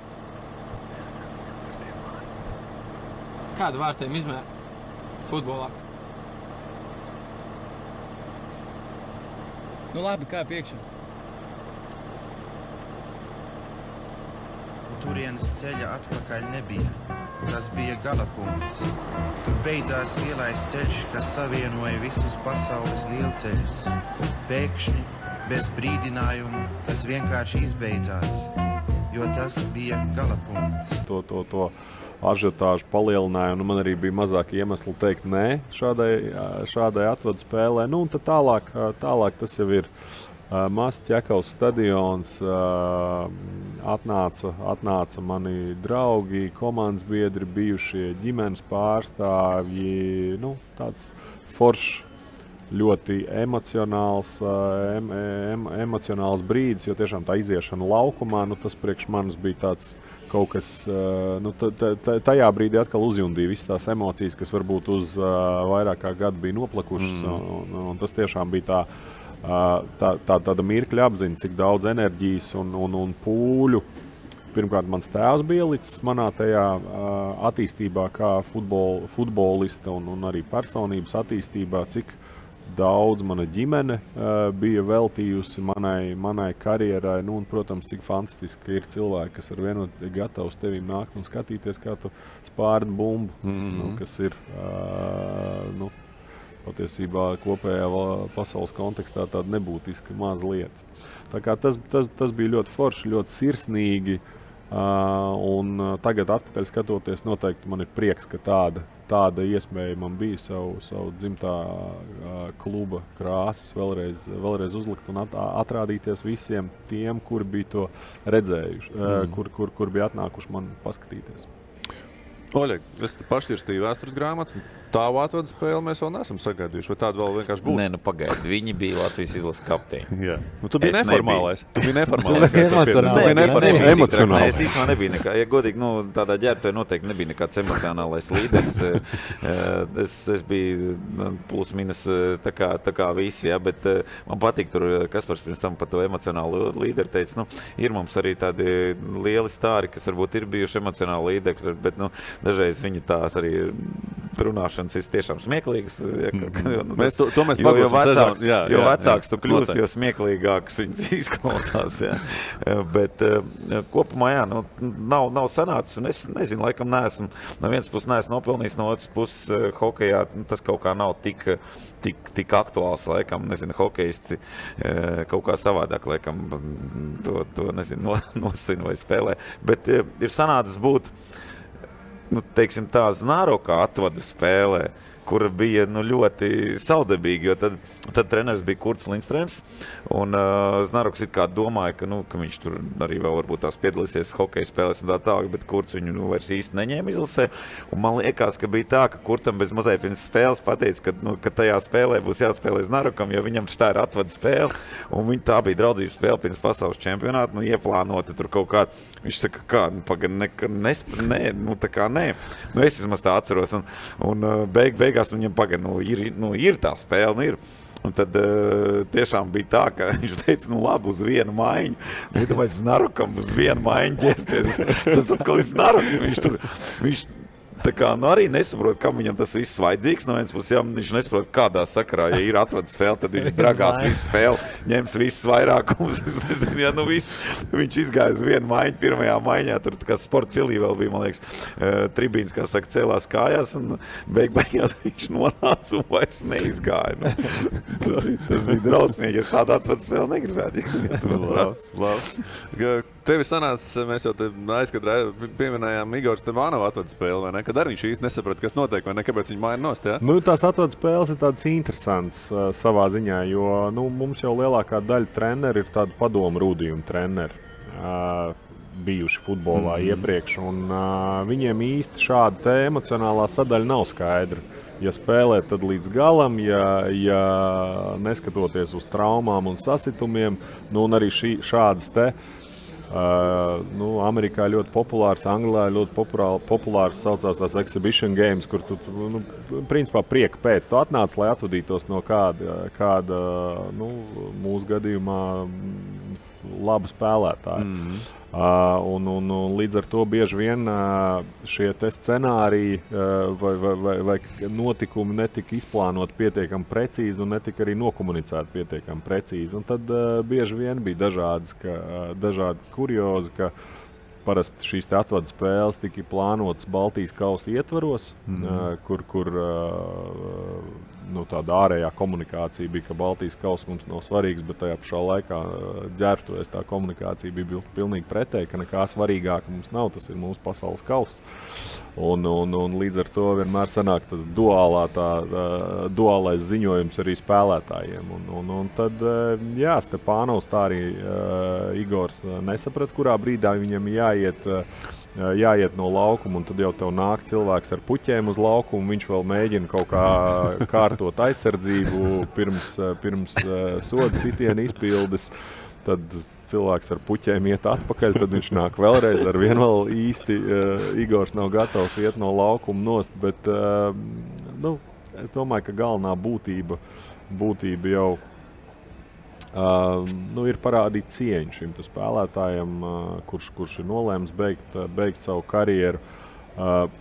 K: Kādu vārtiem izmēr futbolā? Nu labi, kā piekšā?
M: Turienes ceļa atpakaļ nebija. Tas bija galapunkts. Tur beidzās lielais ceļš, kas savienoja visus pasaules lielceļus. Pēkšņi, bez brīdinājumu, tas vienkārši izbeidzās, jo tas bija galapunkts.
C: To ažiotāžu palielināja, un man arī bija mazāk iemesli teikt nē šādai atvadu spēlē. Nu, un tad tālāk tas jau ir mazs Ķekavas stadions, atnāca mani draugi, komandas biedri, bijušie ģimenes pārstāvji, nu, tāds foršs, ļoti emocionāls brīdis, jo tiešām tā iziešana laukumā, nu, tas priekš manis bija tāds kaut kas, nu, tajā brīdī atkal uzjundīja visas tās emocijas, kas varbūt uz vairāk kā gadu bija noplakušas, un tas tiešām bija tāda mirkļa apziņa, cik daudz enerģijas un pūļu. Pirmkārt, mans tēvs bija ielicis manā tajā attīstībā kā futbolista un arī personības attīstībā, cik daudz mana ģimene bija veltījusi manai karjerai. Nu, un, protams, cik fantastiski ir cilvēki, kas ar vienu gatavi uz tevīm nākt un skatīties, kā tu spārdi bumbu, nu, kas ir patiesībā kopējā pasaules kontekstā tāda nebūtiska maza lieta. Tā kā tas bija ļoti forši, ļoti sirsnīgi, un tagad atpakaļ skatoties, noteikti man ir prieks, ka tāda iespēja man bija savu dzimtā kluba krāsas vēlreiz uzlikt un atrādīties visiem tiem, kuri bija to redzējuši, kur bija atnākuši man paskatīties.
F: Oļeg, es pašķirstīju vēstures grāmatas. Tāvu atvadu spēli mēs vēl neesam sagaidījuši. Vai tāda vēl vienkārši būs?
D: Nē, nu pagaidi. Viņi bija Latvijas izlases kapteini.
F: Jā. Nu, tu biji neformālais.
D: Tu biji emocionālais. Es īstenībā nebija nekā. Ja godīgi, nu, tādā ģērbtuvē noteikti nebija nekāds emocionālais līderis. Es biju plus minus tā kā visi, jā, bet man patīk tur, Kaspars pirms tam par to emocionālu līderi teica, nu, ir mums arī tādi lieli stāri, kas varbūt ir bijuši emocionāli līderi, bet, nu, dažreiz viņi tās arī runāšanas ir tiešām smieklīgas. Jo vecāks tu kļūst, jo smieklīgāks viņas izklausās. Jā. Bet kopumā, jā, nu, nav sanācis, un es nezinu, laikam neesmu, no vienas puses neesmu nopelnījis, no otras puses hokejā tas kaut kā nav tik aktuāls, laikam, nezinu, hokejisti kaut kā savādāk, laikam, to nezinu, nosvin vai spēlē. Bet ir sanācis būt, nu, teiksim tā, Znārokā atvadu spēlē, kur bija ļoti saudabīgi, jo tad treneris bija Kurts Lindstrēms, un Znaruks it kā domāja, ka viņš tur arī vēl varbūt tās piedalīsies hokeja spēlēs un tā tālāk, bet Kurts viņu vairs īsti neņēma izlasē, un man liekas, ka bija tā, ka Kurtam bez mazai pirms spēles pateica, ka tajā spēlē būs jāspēlē Znarukam, jo viņam tā ir atvada spēle, un tā bija draudzības spēle pirms pasaules čempionāta, ieplānota tur kaut kā, viņš saka, nē, es vismaz tā atceros, un beigās viņam ir tā spēle, ir. Un tad tiešām bija tā, ka viņš teica, labi, uz vienu maiņu. Iedomājies Znarukam uz vienu maiņu ģērties. Tas atkal ir Znaruks. Viņš tā kā arī nesaprot, kam viņam tas viss vajadzīgs. No viens puses, ja viņš nesaprot, kādā sakarā, ja ir atvada spēle, tad viņš dragās visu spēli, ņems visas vairākumus. Es nezinu, viņš izgāja uz vienu maiņu, pirmajā maiņā, tur kā sporta filī vēl bija, man liekas, tribīns, kā saka, cēlās kājās, un beigās viņš nonāca un vairs neizgāja. Tas bija drausmīgi, es tādu atvada spēli negribētu.
F: Tevi sanāca, mēs jau te aizkadrē pieminējām Igors Stevanova atvada spēli, vai ne? Kad arī viņš īsti nesaprata, kas notiek, vai ne? Kāpēc viņi maina nost, jā?
C: Tās atvada spēles ir tādas interesantas savā ziņā, jo mums jau lielākā daļa treneri ir tādu padomu rūdījumu treneri bijuši futbolā iepriekš, un viņiem īsti šāda te emocionālā sadaļa nav skaidra. Ja spēlēt, tad līdz galam, ja neskatoties uz traumām un sasitumiem, un arī šādas te Amerikā ļoti populārs, Anglijā ļoti populārs saucās tās exhibition games, kur tu principā prieka pēc. Tu atnāc, lai atvadītos no kāda mūsu gadījumā laba spēlētāja. Un līdz ar to bieži vien šie te scenāriji vai notikumi netika izplānoti pietiekami precīzi un netika arī nokomunicēti pietiekami precīzi. Un tad bieži vien bija dažādi kuriozi, ka parasti šīs te atvada spēles tika plānotas Baltijas kausa ietvaros, kur tāda ārējā komunikācija bija, ka Baltijas kausa mums nav svarīgs, bet tajā pašā laikā ģērbtuvēs tā komunikācija bija pilnīgi pretēji, ka nekā svarīgāka mums nav, tas ir mūsu pasaules kauss. Un līdz ar to vienmēr sanāk tas duālais ziņojums arī spēlētājiem. Un tad, jā, Stepānovs tā arī Igors nesaprata, kurā brīdā viņam jāiet no laukuma, un tad jau tev nāk cilvēks ar puķēm uz laukumu, viņš vēl mēģina kaut kā kārtot aizsardzību pirms soda sitiena izpildes. Tad cilvēks ar puķēm iet atpakaļ, tad viņš nāk vēlreiz, ar vienu vēl īsti Igors nav gatavs iet no laukuma nost, bet es domāju, ka galvenā būtība jau ir parādīt cieņu šim spēlētājam, kurš ir nolēms beigt savu karjeru.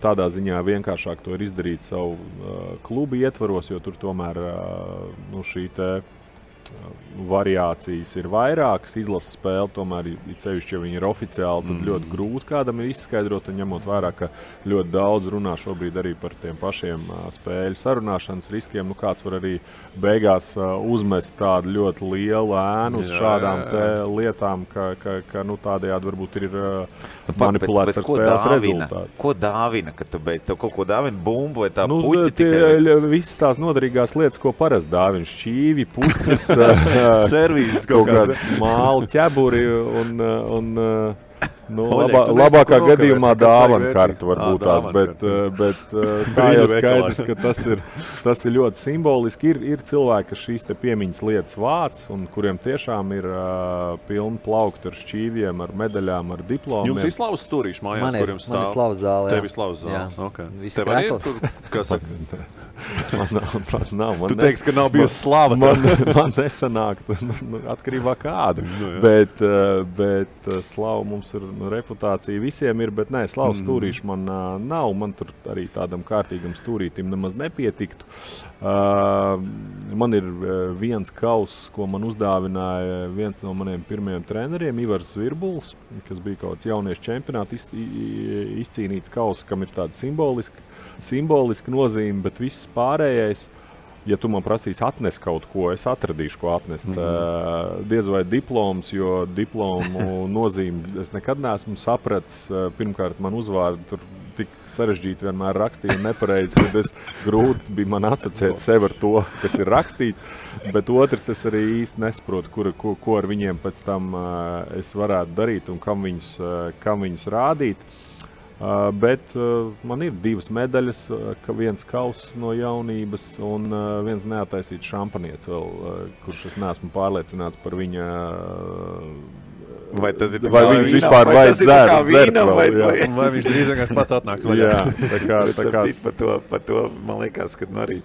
C: Tādā ziņā vienkāršāk to ir izdarīt savu klubu ietvaros, jo tur tomēr šī te variācijas ir vairākas. Izlases spēle tomēr, cevišķi, ja viņi ir oficiāli, tad ļoti grūti kādam ir izskaidrot, un ņemot vērā, ka ļoti daudz runā šobrīd arī par tiem pašiem spēļu sarunāšanas riskiem. Kāds var arī beigās uzmest tādu ļoti lielu ēnu uz šādām te lietām, ka tādējādi varbūt ir manipulēts ar spēles rezultātu.
D: Ko dāvina, kad tu beidz? Tev kaut ko dāvina bumbu vai tā puķi tikai?
C: Visas tās noderīgās lietas, ko parasti dāvina, šķīvi, puķis,
F: servīzes
C: kaut kāds māli, ķeburi un labākā gadījumā dāvana karta varbūt tās, bet tā jau skaidrs, ka tas ir ļoti simboliski. Ir cilvēki, kas šīs te piemiņas lietas vāc, un kuriem tiešām ir pilni plaukti ar šķīviem, ar medaļām, ar diplomiem.
F: Jums ir slavas stūrīši mājās, kuriem stāv?
E: Man ir slavas zāle, jā.
F: Tev ir slavas zāle, ok.
E: Tev arī
F: ir tur, kā saka?
C: Man nav.
F: Tu teiksi, ka nav bijusi slava.
C: Man nesanāk, atkarībā kāda. Bet slava mums ir reputācija visiem ir, bet nē, slavas stūrīši man nav. Man tur arī tādam kārtīgam stūrītim nemaz nepietiktu. Man ir viens kauss, ko man uzdāvināja viens no maniem pirmajiem treneriem, Ivars Zvirbuls, kas bija kaut kāds jauniešu čempionāti izcīnīts kauss, kam ir tāda simboliska nozīme, bet viss pārējais, ja tu man prasīsi atnest kaut ko, es atradīšu, ko atnest. Diez vai diploms, jo diplomu nozīmi es nekad neesmu sapratis. Pirmkārt, man uzvārdu tur tik sarežģīti vienmēr rakstīju un nepareizi, kad es grūti bija man asociēt sevi ar to, kas ir rakstīts, bet otrs es arī īsti nesaprotu, ko ar viņiem pēc tam es varētu darīt un kam viņus rādīt. Bet man ir 2 medaļas, viens kauss no jaunības un viens neataisīts šampanietis vēl, kurš es neesmu pārliecināts par viņa...
D: Vai tas ir
C: vai viņus vispār vajag dzert vēl,
F: vai viņš drīz vienkārši pats atnāks vaļā.
C: Jā, tā kā.
D: Par to, man liekas, ka arī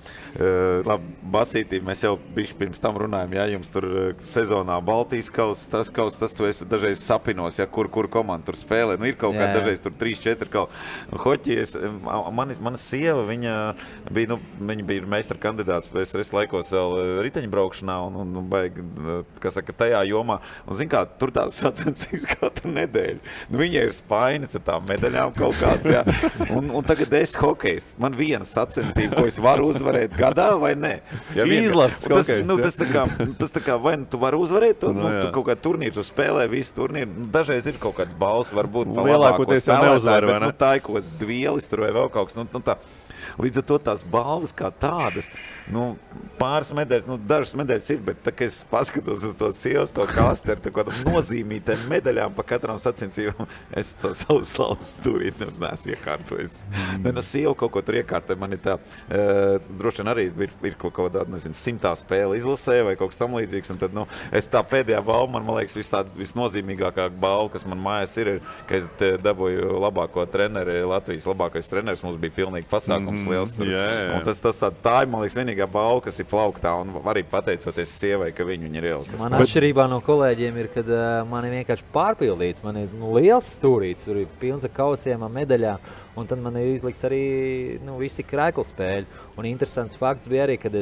D: labi, basītī mēs jau bišķi pirms tam runājam, jums tur sezonā Baltijas tas tu esi dažreiz sapinos, kur komanda tur spēlē. Ir kaut kā dažreiz tur 3-4 kaut. Hoķies, mana sieva, viņa bija meistara kandidāts PSRS laikos vēl riteņbraukšanā un baigi, kā saka, tajā jomā. Un zin kā, tur tās sacensības katru nedēļu. Viņai ir spainis ar tām medaļām kaut kāds, jā. Un tagad es hokejs. Man viena sacensība, ko es varu uzvarēt gadā vai ne.
F: Izlases hokejs.
D: Tas tā kā, vai tu vari uzvarēt to, tu kaut kā turnīru, tu spēlē visu turnīru. Dažreiz ir kaut kāds balss, varbūt pa labāko spēlētāju, bet tā ir kaut kāds dvielis tur vai vēl kaut kas. Tā. Līdz ar to tās balvas kā tādas, pāris medaļas, dažas medaļas ir, bet tā, kad es paskatos uz to sievas, to kastu ar kādam nozīmītēm medaļām pa katram sacensībām, es savu slavu stūrīt nemaz neesmu iekārtojis. Sieva kaut ko tur iekārtoja, man ir tā, droši vien arī ir kaut kādā, 100. spēle izlasē vai kaut kas tam līdzīgs, un tad, es tā pēdējā balva, man liekas, visnozīmīgākā balva, kas man mājās ir, ka es dabūju labāko treneri, Latvijas labākais treneris, mums bija pilnīgi pasākums liels tur. Un tā ir, man liekas, vienīgā balva, kas ir plauktā, un arī pateicoties sievai, ka viņi ir ielikas.
E: Man atšķirībā no kolēģiem ir, kad man ir vienkārši pārpildīts, man ir liels stūrīts, tur ir pilns ar kausiem, medaļām, un tad man ir izlikts arī visi krēkla spēļi. Un interesants fakts bija arī, kad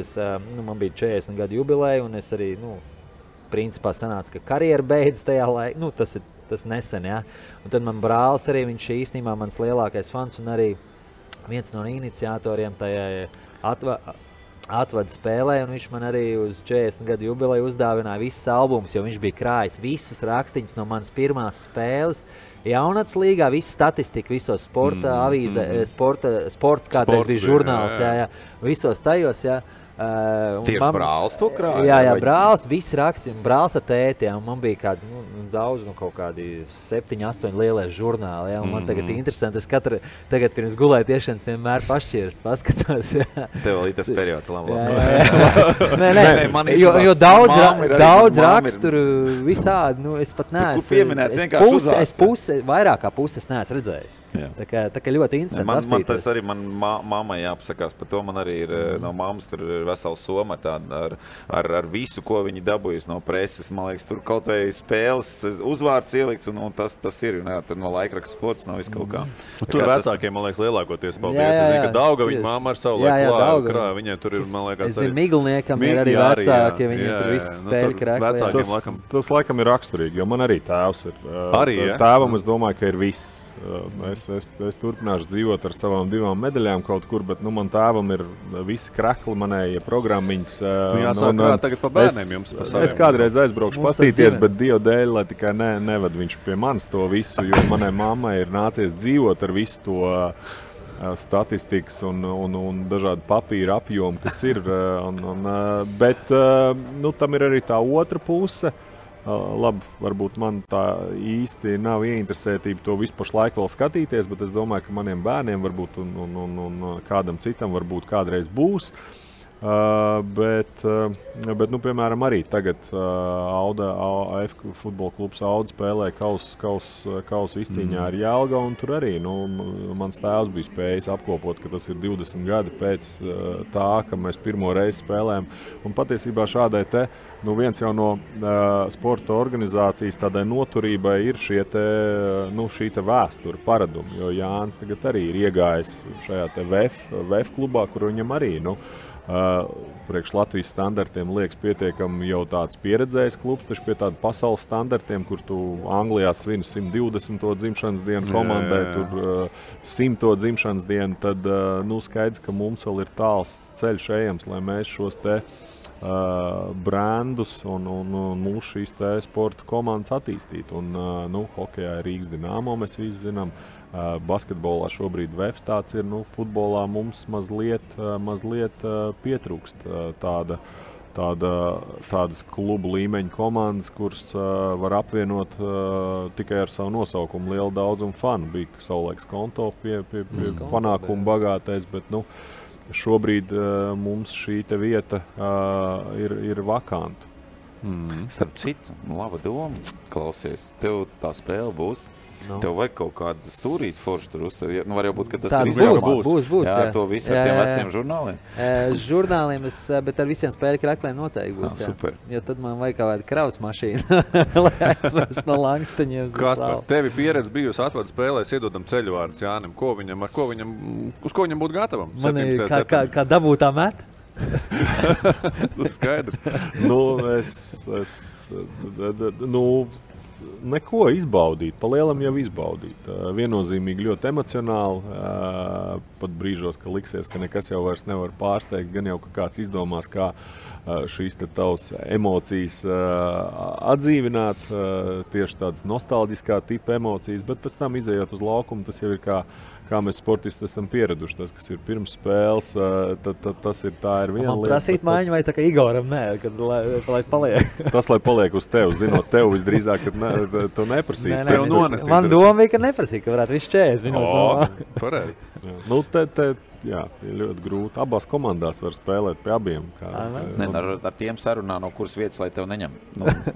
E: man bija 40 gadu jubileja, un es arī, principā sanāca, ka karjera beidz tajā laikā, tas nesen, jā. Un tad man brālis arī, viņš īstenībā mans lielākais fans, un arī viens no iniciatoriem tajā atvadu spēlē, un viņš man arī uz 40 gadu jubileju uzdāvināja visas albumus, jo viņš bija krājis visus rakstīņus no manas pirmās spēles. Jaunats līgā, visu statistiku, visos sporta avīze, sports kādreiz bija žurnāls, jā, visos tajos, jā.
D: Tieši brālis to krāja?
E: Jā, brālis, viss rakstīja, brālis ar tēti, un man bija kādi, daudz, kaut kādi 7-8 lielie žurnāli, jā, un man tagad interesanti, es tagad pirms gulēju tiešanas vienmēr pašķirst, paskatos, jā.
D: Tev vēl ir tas periods, labi.
E: Nē, jo daudz raksturu visādi, es pat neesmu.
D: Tur pieminēts vienkārši uzvārds.
E: Vairāk kā puses neesmu redzējis. Tā kā ļoti interesanti apstīties.
D: Man tas arī, man mammai jāpasakās par to, man arī ir no mammas tur ir vesela soma ar visu, ko viņi dabūjusi no preses. Man liekas, tur kaut vai spēles uzvārds ielikts, un tas ir, un tad no laikraksta sports nav viss kaut kā.
F: Tur vecākiem, man liekas, lielākoties paldies. Es zinu, ka Dauga viņa mamma ar savu laiku krāja. Viņai tur ir, man liekas,
E: es zinu, Miglniekam ir arī vecāki, viņiem tur viss spēļi krāja.
C: Tas laikam ir raksturīgi, jo man arī tēvs ir. Tēvam es domāju, ka ir viss. Es turpināšu dzīvot ar savām 2 medaļām kaut kur, bet man tēvam ir visi krekli, manējie programmiņas.
F: Jāsāk tagad pa bērniem jums pa saviem.
C: Es kādreiz aizbraukšu pastīties, bet Dievu dēļ, lai tikai nevad viņš pie manis to visu, jo manai mammai ir nācies dzīvot ar visu to statistikas un dažādu papīru apjomu, kas ir. Bet tam ir arī tā otra puse. Labi, varbūt man tā īsti nav ieinteresētība to visu pašlaik vēl skatīties, bet es domāju, ka maniem bērniem varbūt un kādam citam varbūt kādreiz būs. Bet piemēram, arī tagad AF futbola klubs Auda spēlē kausa izcīņā ar Jelgavu, un tur arī mans tēvs bija spējis apkopot, ka tas ir 20 gadi pēc tā, ka mēs pirmo reizi spēlējam. Un patiesībā šādai viens jau no sporta organizācijas tādai noturībai ir šī vēsture paradumi, jo Jānis tagad arī ir iegājis šajā VF klubā, kur viņam arī, priekš Latvijas standartiem liekas pietiekami jau tāds pieredzējis klubs, taču pie tāda pasaules standartiem, kur tu Anglijā svini 120. dzimšanas dienu komandai, tur 100. dzimšanas dienu, tad skaidrs, ka mums vēl ir tāls ceļš ejams, lai mēs šos brandus un mūsu šīs sporta komandas attīstīt. Un, hokejā ir Rīgas Dinamo, mēs visi zinām. Basketbolā šobrīd VEFs tāds ir, futbolā mums mazliet pietrūkst tādas klubu līmeņa komandas, kuras var apvienot tikai ar savu nosaukumu lielu daudzumu fanu. Bija savulaiks Konto pie panākumu bagātais, bet šobrīd mums šī te vieta ir vakanta.
D: Starp citu, laba doma, klausies, tev tā spēle būs. Tev vajag kaut kādu stūrīt foršu tur uztavi. Var jau būt, ka tas ir
E: Būs,
D: jā. To visu ar tiem veciem žurnāliem.
E: Žurnāliem, bet ar visiem spēļu krakliem noteikti būs.
D: Super.
E: Jo tad man vajag kaut kādu kravas mašīnu, lai aizvest no Langstaņiem.
F: Kaspar, tevi pieredze bijusi atvadu spēlēs, iedodam ceļvārdus Jānim. Uz ko viņam būtu gatavam?
E: Man kā dabūtā met?
F: Tas skaidrs.
C: Neko izbaudīt, pa lielam jau izbaudīt. Viennozīmīgi ļoti emocionāli, pat brīžos, ka liksies, ka nekas jau vairs nevar pārsteigt, gan jau ka kāds izdomās, kā šīs te tavas emocijas atdzīvināt, tieši tādas nostalģiskā tipa emocijas, bet pēc tam izējot uz laukumu, tas jau ir kā mēs sportisti esam pieraduši. Tas, kas ir pirms spēles, tas ir tā ir viena lieta.
E: Man prasīt mājiņu vai tā kā Igoram, nē, lai paliek.
C: Tas, lai paliek uz tevi, zinot tev visdrīzāk, ka tu neprasīsi.
E: Man doma bija, ka neprasīja, ka varētu visu 40 minūtes.
F: Pareizi.
C: Jā, ir ļoti grūti. Abās komandās var spēlēt pie abiem.
D: Ar tiem sarunā, no kuras vietas, lai tev neņem.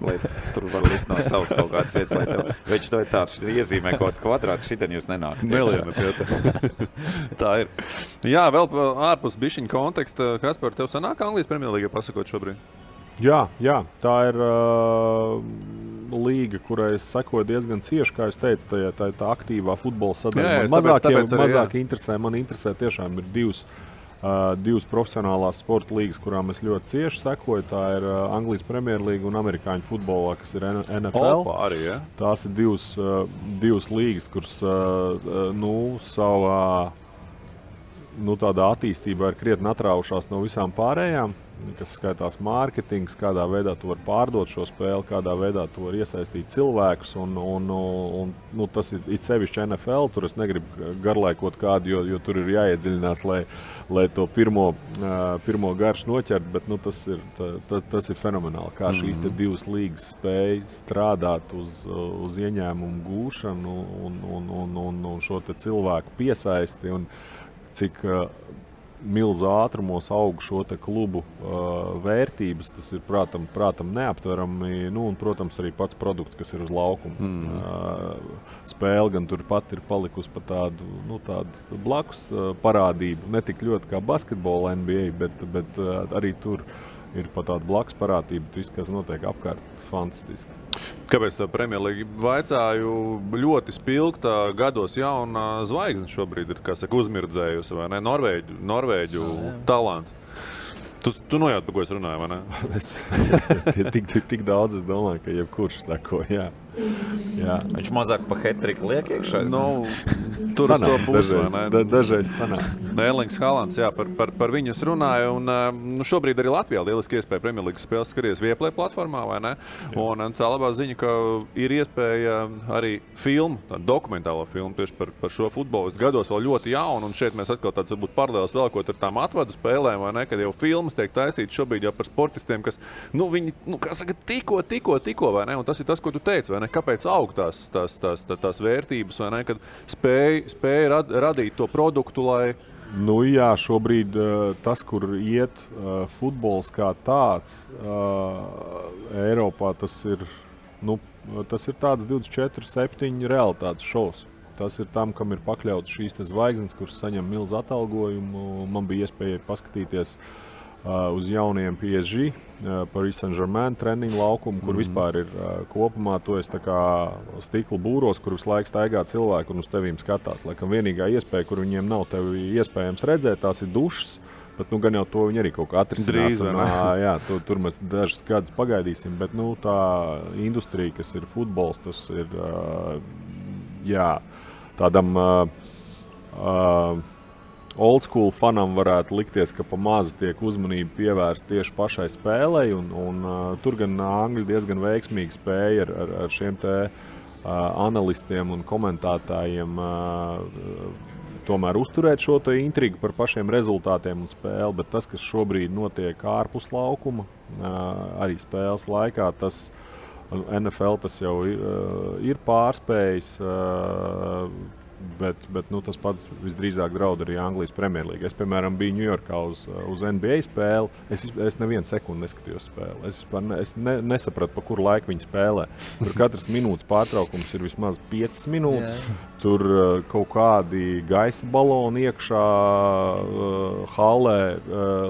D: Lai tur var likt no savas kaut kādas vietas, lai tev... Veči to ir tāds, iezīmē kaut kvadrātu, šitien jūs nenāk.
F: Tā ir. Jā, vēl ārpus bišķiņa konteksta, Kaspar, tev sanāk Anglijas Premjerlīgai pasakot šobrīd?
C: Jā, tā ir līga, kurai es sekoju diezgan cieši, kā es teicu, tā aktīvā futbola sadaļa. Mazāk interesē, man interesē tiešām ir divas profesionālās sporta līgas, kurām es ļoti cieši sekoju. Tā ir Anglijas Premjerlīga un amerikāņu futbolā, kas ir NFL.
F: Arī, ja?
C: Tās ir divas līgas, kuras savā tādā attīstībā ir krietni atraušās no visām pārējām, kas skaitās mārketings, kādā veidā tu vari pārdot šo spēli, kādā veidā tu vari iesaistīt cilvēkus. Un tas ir it sevišķi NFL, tur es negribu garlaikot kādu, jo tur ir jāiedziļinās, lai to pirmo garšu noķert, bet tas ir fenomenāli, kā šīs te divas līgas spēja strādāt uz ieņēmumu gūšanu un šo te cilvēku piesaisti un cik milzu ātrumos aug šo te klubu vērtības, tas ir prātam neaptverami, un, protams, arī pats produkts, kas ir uz laukuma. Spēle gan turpat ir palikusi pa tādu blakus parādību, ne tik ļoti kā basketbola NBA, bet arī tur ir pa tādu blakus parādību, viss, kas notiek apkārt, fantastiski.
F: Kāpēc tā Premjerlīga vaicāju ļoti spilgta gados jauna zvaigzne šobrīd ir, kā saka, uzmirdzējusi, vai ne? Norvēģu talants. Tu nojaut, par ko es runāju, vai ne?
C: Tik daudz, es domāju, ka jebkurš sako, jā.
D: Viņš mazāk pa hat-triku liek iekšā?
F: Tur sanāk, uz to pusi, vai ne?
C: Dažreiz sanāk.
F: Erlings Haalands, jā, par viņu es runāju, un šobrīd arī Latvijā lieliski iespēja Premjerlīgas spēles skaties Vieplay platformā, vai ne? Un tā labā ziņa, ka ir iespēja arī dokumentālo filmu tieši par šo futbolistu gados vēl ļoti jaunu, un šeit mēs atkal tāds varbūt paralēls vēlkot ar tām atvadu spēlēm, vai ne, kad jau filmas tiek taisītas šobrīd jau par sportistiem, kas, viņi, kā saka, tikko, vai ne, un tas ir tas, ko tu teici, vai ne, kāpēc aug tās vērtības, vai ne, kad spēja radīt to produktu, lai...
C: Jā, šobrīd tas, kur iet futbols kā tāds, Eiropā tas ir tāds 24/7 realitātes šovs. Tas ir tam, kam ir pakļauts šīs te zvaigznes, kuras saņem milzu atalgojumu. Man bija iespēja paskatīties uz jauniem PSG, Paris Saint-Germain treniņu laukumu, kur vispār ir kopumā to es tā kā stikla būros, kur visu laiku staigā cilvēku un uz tevīm skatās. Laikam vienīgā iespēja, kur viņiem nav tevi iespējams redzēt, tās ir dušas, bet gan jau to viņi arī kaut kā atrisinās. Jā, tur mēs dažas gadus pagaidīsim, bet tā industrija, kas ir futbols, tas ir tādam old school fanam varētu likties, ka pa mazu tiek uzmanība pievērsta tieši pašai spēlei, un tur gan Angļi diezgan veiksmīgi spēja ar šiem te analistiem un komentētājiem tomēr uzturēt šo te intrigu par pašiem rezultātiem un spēli, bet tas, kas šobrīd notiek ārpus laukuma, arī spēles laikā, tas NFL tas jau ir pārspējis, bet tas pats visdrīzāk draud arī Anglijas Premjerlīga. Es, piemēram, biju Ņujorkā uz NBA spēli. Es nevienu sekundi neskatījos spēli. Es nesapratu, pa kuru laiku viņi spēlē. Tur katras minūtes pārtraukums ir vismaz 5 minūtes. Tur kaut kādi gaisa baloni iekšā hallē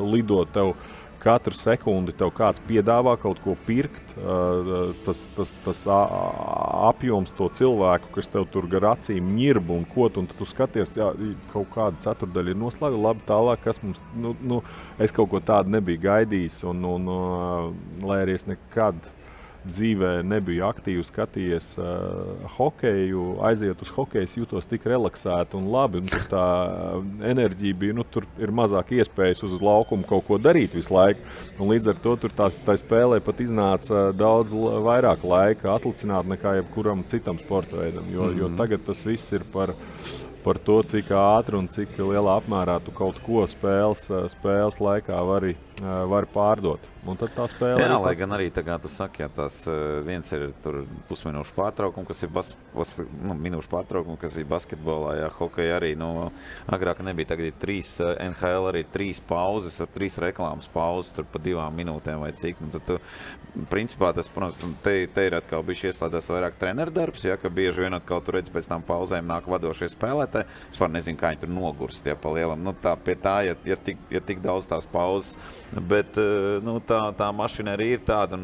C: lido tev. Katru sekundi tev kāds piedāvā kaut ko pirkt, tas apjoms to cilvēku, kas tev tur gar acīm ņirb un kot, un tu skaties, jā, kaut kāda ceturdaļa ir noslēgta, labi tālāk, kas mums, es kaut ko tādu nebiju gaidījis, un lai arī es nekad dzīvē nebiju aktīvi skatījies hokeju, aiziet uz hokeju, es jūtos tik relaksēti un labi, un tur tā enerģija bija, tur ir mazāk iespējas uz laukumu kaut ko darīt visu laiku, un līdz ar to tur tā spēlē pat iznāca daudz vairāk laika atlicināt nekā jebkuram citam sporta veidam, jo tagad tas viss ir par to, cik ātri un cik lielā apmērā tu kaut ko spēles laikā vari pārdot. Un tad tā spēle
D: jā, lai gan arī tā kā tu saki, tās viens ir tur pusminūšu pārtraukumi, kas ir minūšu pārtraukumi, kas ir basketbolā, jā, hokeja arī, agrāk nebija, tagad ir 3, NHL arī 3 pauzes, ar 3 reklāmas pauzes, tur pa 2 minūtēm vai cik, tad tu, principā tas, protams, te ir atkal bijuši ieslēdzās vairāk treneru darbs, jā, ka bieži vien atkal tu redz pēc tām pauzēm nāk vadošie spēlētāji, es var nezinu, kā viņi tur nogurst, jā, pa lielam, tā pie tā, ja tik daudz tās pauzes, bet, tā mašinērija ir tāda, un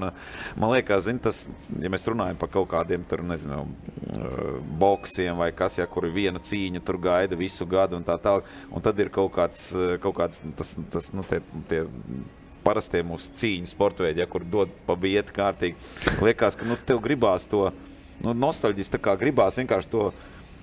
D: man liekas, tas, ja mēs runājam par kaut kādiem tur, nezinu, boksiem vai kas, ja, kur viena cīņa tur gaida visu gadu un tā tālāk, un tad ir kaut kāds tas tie parastie mūsu cīņu sportveidi, ja, kur dod pa bieti kārtīgi. Liekas, ka tev gribās to, nostalģis tā kā gribās vienkārši to,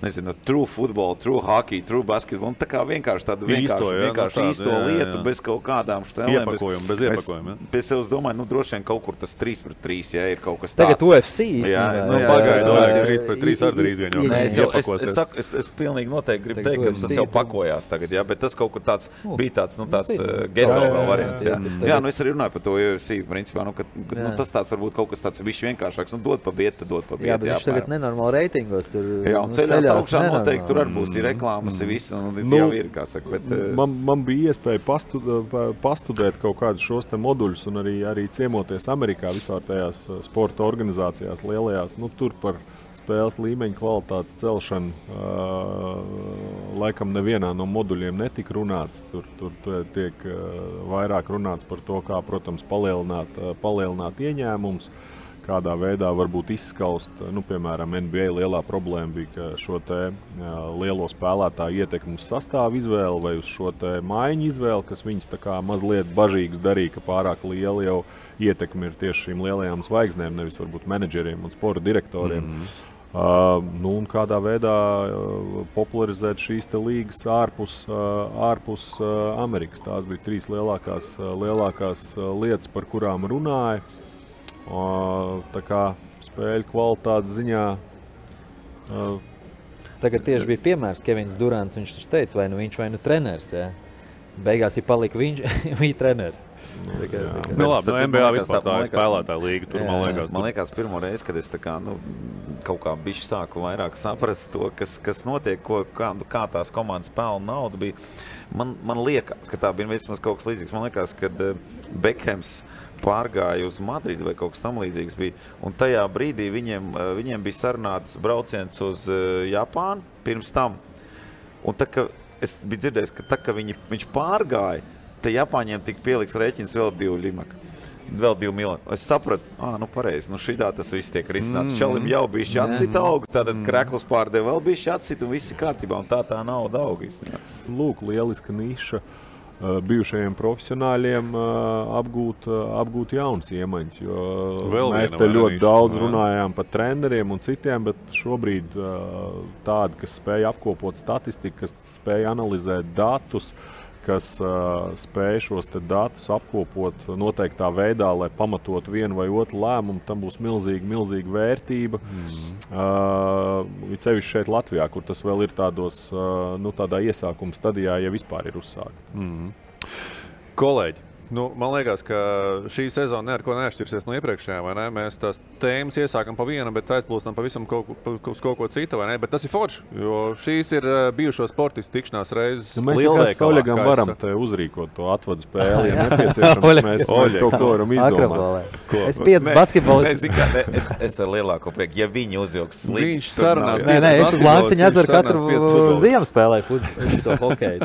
D: nezinu, true football, true hockey, true basketball, un tā kā vienkārši tādu vienkārši īsto lietu, bez kaut kādām štelēm.
F: Bez iepakojuma.
D: Es domāju, droši vien kaut kur tas 3-3, ja ir kaut kas tāds.
E: Tagad UFC īstenībā.
F: Pagaidām, 3-3 arī drīz vien jau.
D: Es pilnīgi noteikti gribu teikt, ka tas jau pakojās tagad, jā, bet tas kaut kur tāds bija tāds geto vēl variants, jā. Jā, es arī runāju par to UFC, principā, tas tāds varbūt kaut kas tāds bišķi vienkāršāks, dod pa bieti,
E: jā, bet viņš tagad nenormāli reitingos tur.
D: Jā, un ceļās augšā noteikti tur arī būs ir reklāmas, ir viss, un jau ir, kā saka. Bet,
C: man bija iespēja pastudēt kaut kādus šos te moduļus un arī ciemoties Amerikā vispār tajās sporta organizācijās lielajās. Tur par spēles līmeņa kvalitātes celšanu laikam nevienā no moduļiem netika runāts. Tur tiek vairāk runāts par to, kā, protams, palielināt ieņēmumus. Kādā veidā varbūt izskaust, piemēram, NBA lielā problēma bija, ka šo te lielo spēlētāju ietekmu uz sastāvu izvēli vai uz šo te maiņu izvēli, kas viņus tā kā mazliet bažīgus darīja, ka pārāk liela jau ietekme ir tieši šīm lielajām zvaigznēm, nevis varbūt menedžeriem un sporta direktoriem. Un kādā veidā popularizēt šīs te līgas ārpus Amerikas. Tās bija 3 lielākās lietas, par kurām runāja. Tā kā spēļu kvalitātes ziņā.
E: Tagad tieši bija piemērs Kevins Durants, viņš teica, vai viņš vai treneris, jā. Beigās ir palika viņš, viņa treneris.
F: NBA vispār tā ir spēlētāja līga, tur
D: man liekas pirmo reizi, kad es tā kā, kaut kā bišķi sāku vairāk saprast to, kas notiek, kā tās komandas pelna naudu bija. Man liekas, ka tā bija vismaz kaut kas līdzīgs. Man liekas, kad Bekhams pārgāja uz Madridi vai kaut kas tam līdzīgs bija. Un tajā brīdī viņiem bija sarunāts brauciens uz Japānu pirms tam. Un tā, ka es biju dzirdējis, ka tā, ka viņš pārgāja, te Japāņiem tika pieliks rēķins vēl 2 miljoni. Es sapratu, pareizi, šitā tas viss tiek risināts. Čalim jau bišķi atsita augu, tātad krekls pārdeva vēl bišķi atsita un viss ir kārtībā. Un tā nauda auga īstenībā.
C: Lūk, lieliska niša. bijušajiem profesionāļiem apgūt jaunas iemaņas. Mēs te ļoti daudz runājām par treneriem un citiem, bet šobrīd tādi, kas spēja apkopot statistiku, kas spēja analizēt datus, kas spēj šos datus apkopot noteiktā veidā, lai pamatotu vienu vai otru lēmumu, tam būs milzīga vērtība. Cevišķi šeit Latvijā, kur tas vēl ir tādā iesākuma stadijā, ja vispār ir uzsākta.
F: Kolēģi, man liekas, ka šī sezona neko neatšķirsies no iepriekšējā, vai ne? Mēs tās tēmas iesākam pa vienu, bet aizplūstam pavisam uz kaut ko citu, vai ne? Bet tas ir forši, jo šīs ir bijušo sportistu tikšanās reizes lielveikalā.
C: Mēs Oļegam varam te uzrīkot to atvadu spēli, ja nepieciešams, mēs kaut ko varam izdomāt.
E: Es 5 basketbolistu.
D: Es ar lielāko prieku, ja viņi uzjauks slīdus.
F: Viņš sarunās.
E: Es uz Lankstiņu atceru katru ziemu spēlēju to hokeju.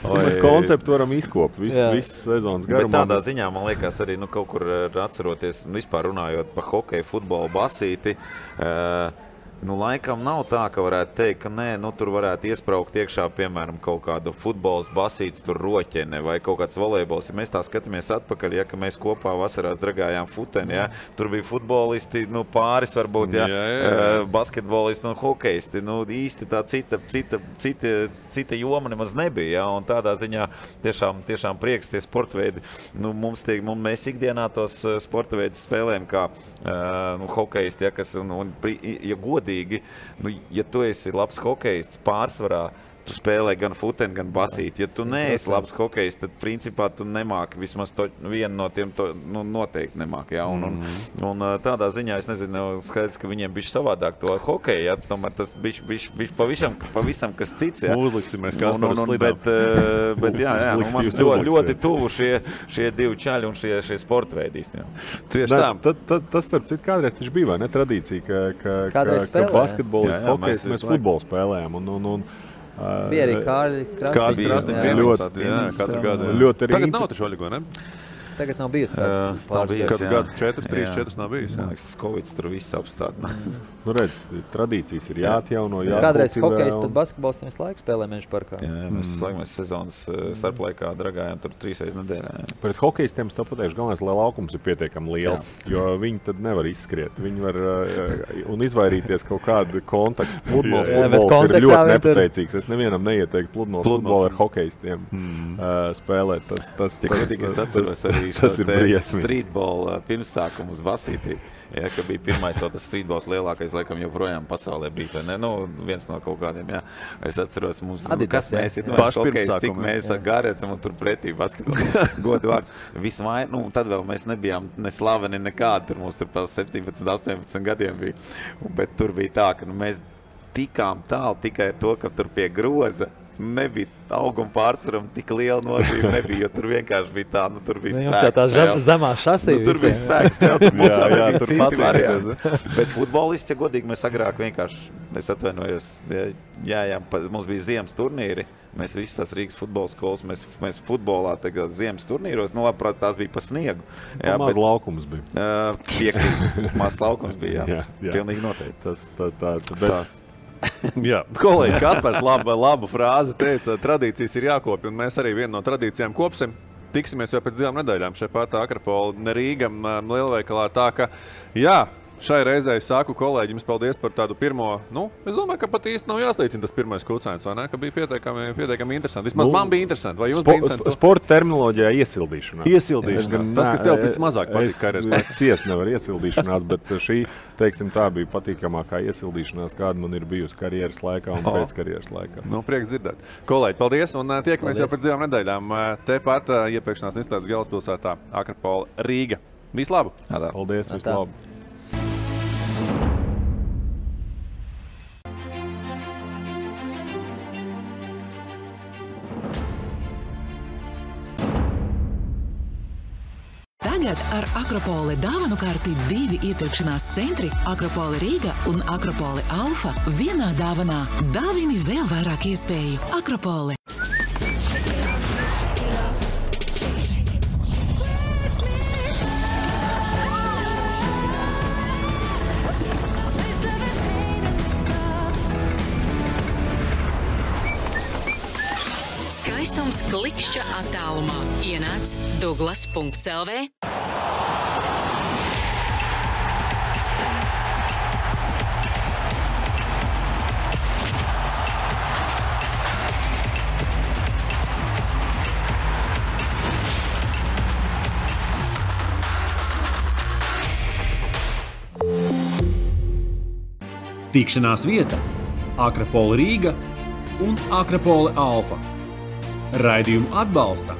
C: Mēs konceptu varam izkopt visu sezonu.
D: Bet tādā ziņā, man liekas, arī kaut kur atceroties, vispār runājot par hokeju, futbolu, basīti, laikam nav tā, ka varētu teikt, ka nē, tur varētu iespraukt iekšā, piemēram, kaut kādu futbols, basīts, tur roķene vai kaut kāds volejbols. Ja mēs tā skatāmies atpakaļ, ka mēs kopā vasarās dragājām futeni, tur bija futbolisti, pāris varbūt, basketbolisti un hokejisti. Īsti tā cita joma nemaz nebija, un tādā ziņā tiešām prieks tie sportveidi. Mēs ikdienā tos sportveidus spēlējam kā hokejisti, kas, ja godīgi, ja tu esi labs hokejists, pārsvarā tu spēlē gan futeni, gan basīti. Ja tu neesi labs hokejists, tad principā tu nemāki, vismaz vienu no tiem noteikti nemāki. Ja? Un tādā ziņā es nezinu, skaidrs, ka viņiem bišķi savādāk to hokeju, ja? Tomēr tas bišķi pavisam kas cits. Ja?
F: Uzliksimies kā par slidām.
D: Bet man ļoti tuvu šie divi čaļi un šie sportveidīs. Ja?
C: Tieši tā. Tas starp citu kādreiz taču bija, vai ne, tradīcija, ka basketbolists, hokejists, mēs futbolu spēlējām.
E: Bija arī Kārļi
F: Krastīši. Tagad nav taču Oļego, ne?
E: Tagad nav bijis.
F: Kādu gadu 4 nav bijis.
D: Man liekas, tas Covid tur viss apstādina.
C: Redz, tradīcijas ir jāatjauno.
E: Kādreiz hokejs, tad basketbols visu laiku spēlē Meža parkā.
D: Jā, mēs sezonas starplaikā dragājām tur 3 reizes nedēļā.
C: Pret hokejistiem es tā pateikšu, galvenais, lai laukums ir pietiekami liels, jo viņi tad nevar izskriet. Viņi var un izvairīties kaut kādu kontaktu. Pludmales futbols ir ļoti nepateicīgs. Es nevienam neieteiktu pludmales futbolu ar hokejistiem spēlēt. Tas ir briesmīgi.
D: Streetball pirmsākumu uz basītī. Ja, ka bija pirmais vēl tas streetballs lielākais, laikam joprojām pasaulē bijis, vai ne? Viens no kaut kādiem, jā. Es atceros, mums, kas mēs ir, cik mēs gari esam un tur pretī basketbolu. Godu vārds. Tad vēl mēs nebijām ne slaveni nekādi, tur mums tur pa 17, 18 gadiem bija. Bet tur bija tā, ka mēs tikām tālu tikai ar to, ka tur pie groza nebija auguma pārsvaram tik liela nozīme nebija, jo tur vienkārši bija tā, tur bija spēks spēle.
E: Zemā šasī
D: tur bija spēks spēle, tur mums bija citi varianti. Bet futbolisti, ja godīgi, mēs agrāk vienkārši, es atvainojos, mums bija ziemas turnīri, mēs visi tās Rīgas futbola skolas, mēs futbolā tagad ziemas turnīros, labprāt, tās bija pa sniegu.
C: Maz laukums bija.
D: Piekrīt, maz laukums bija, jā. Pilnīgi noteikti.
F: Jā, kolēģi Kaspars labu frāzi teica, tradīcijas ir jākopja, un mēs arī vienu no tradīcijām kopsim. Tiksimies jau pēc 2 nedēļām šeit pat Akropola Rīga lielveikalā. Tā ka, jā, šai reizē es saku kolēģim paldies par tādu pirmo, es domāju, ka pat īsti nav jāslīcina tas pirmais kucēns, vai ne? Ka bija pietiekami interesanti. Vismaz man bija interesanti. Vai jums bija interesanti?
C: Sporta terminoloģijā iesildīšanās.
F: Tas, kas tev viss mazāk patīk karjeras.
C: Es ciest nevar iesildīšanās, bet šī, teiksim, tā bija patīkamākā iesildīšanās, kāda man ir bijusi karjeras laikā un pēc karjeras laikā.
F: Prieks dzirdēt. Kolēģi, paldies, un tiekamies jau pēc 2 nedēļām. Tepat iepirkšanās institūts galvaspilsētā Akropola Rīga. Vislabāk!
C: Paldies, vislabāk!
A: Tagad ar Akropoli dāvanu karti 2 iepirkšanās centri Akropoli Rīga un Akropoli Alfa vienā dāvanā. Dāvini vēl vairāk iespēju. Akropoli.
H: Skaistums klik Tikšķa attālumā ienāc Douglas.lv.
B: Tikšanās vieta Akropole Rīga un Akropole Alfa. Raidījumu atbalsta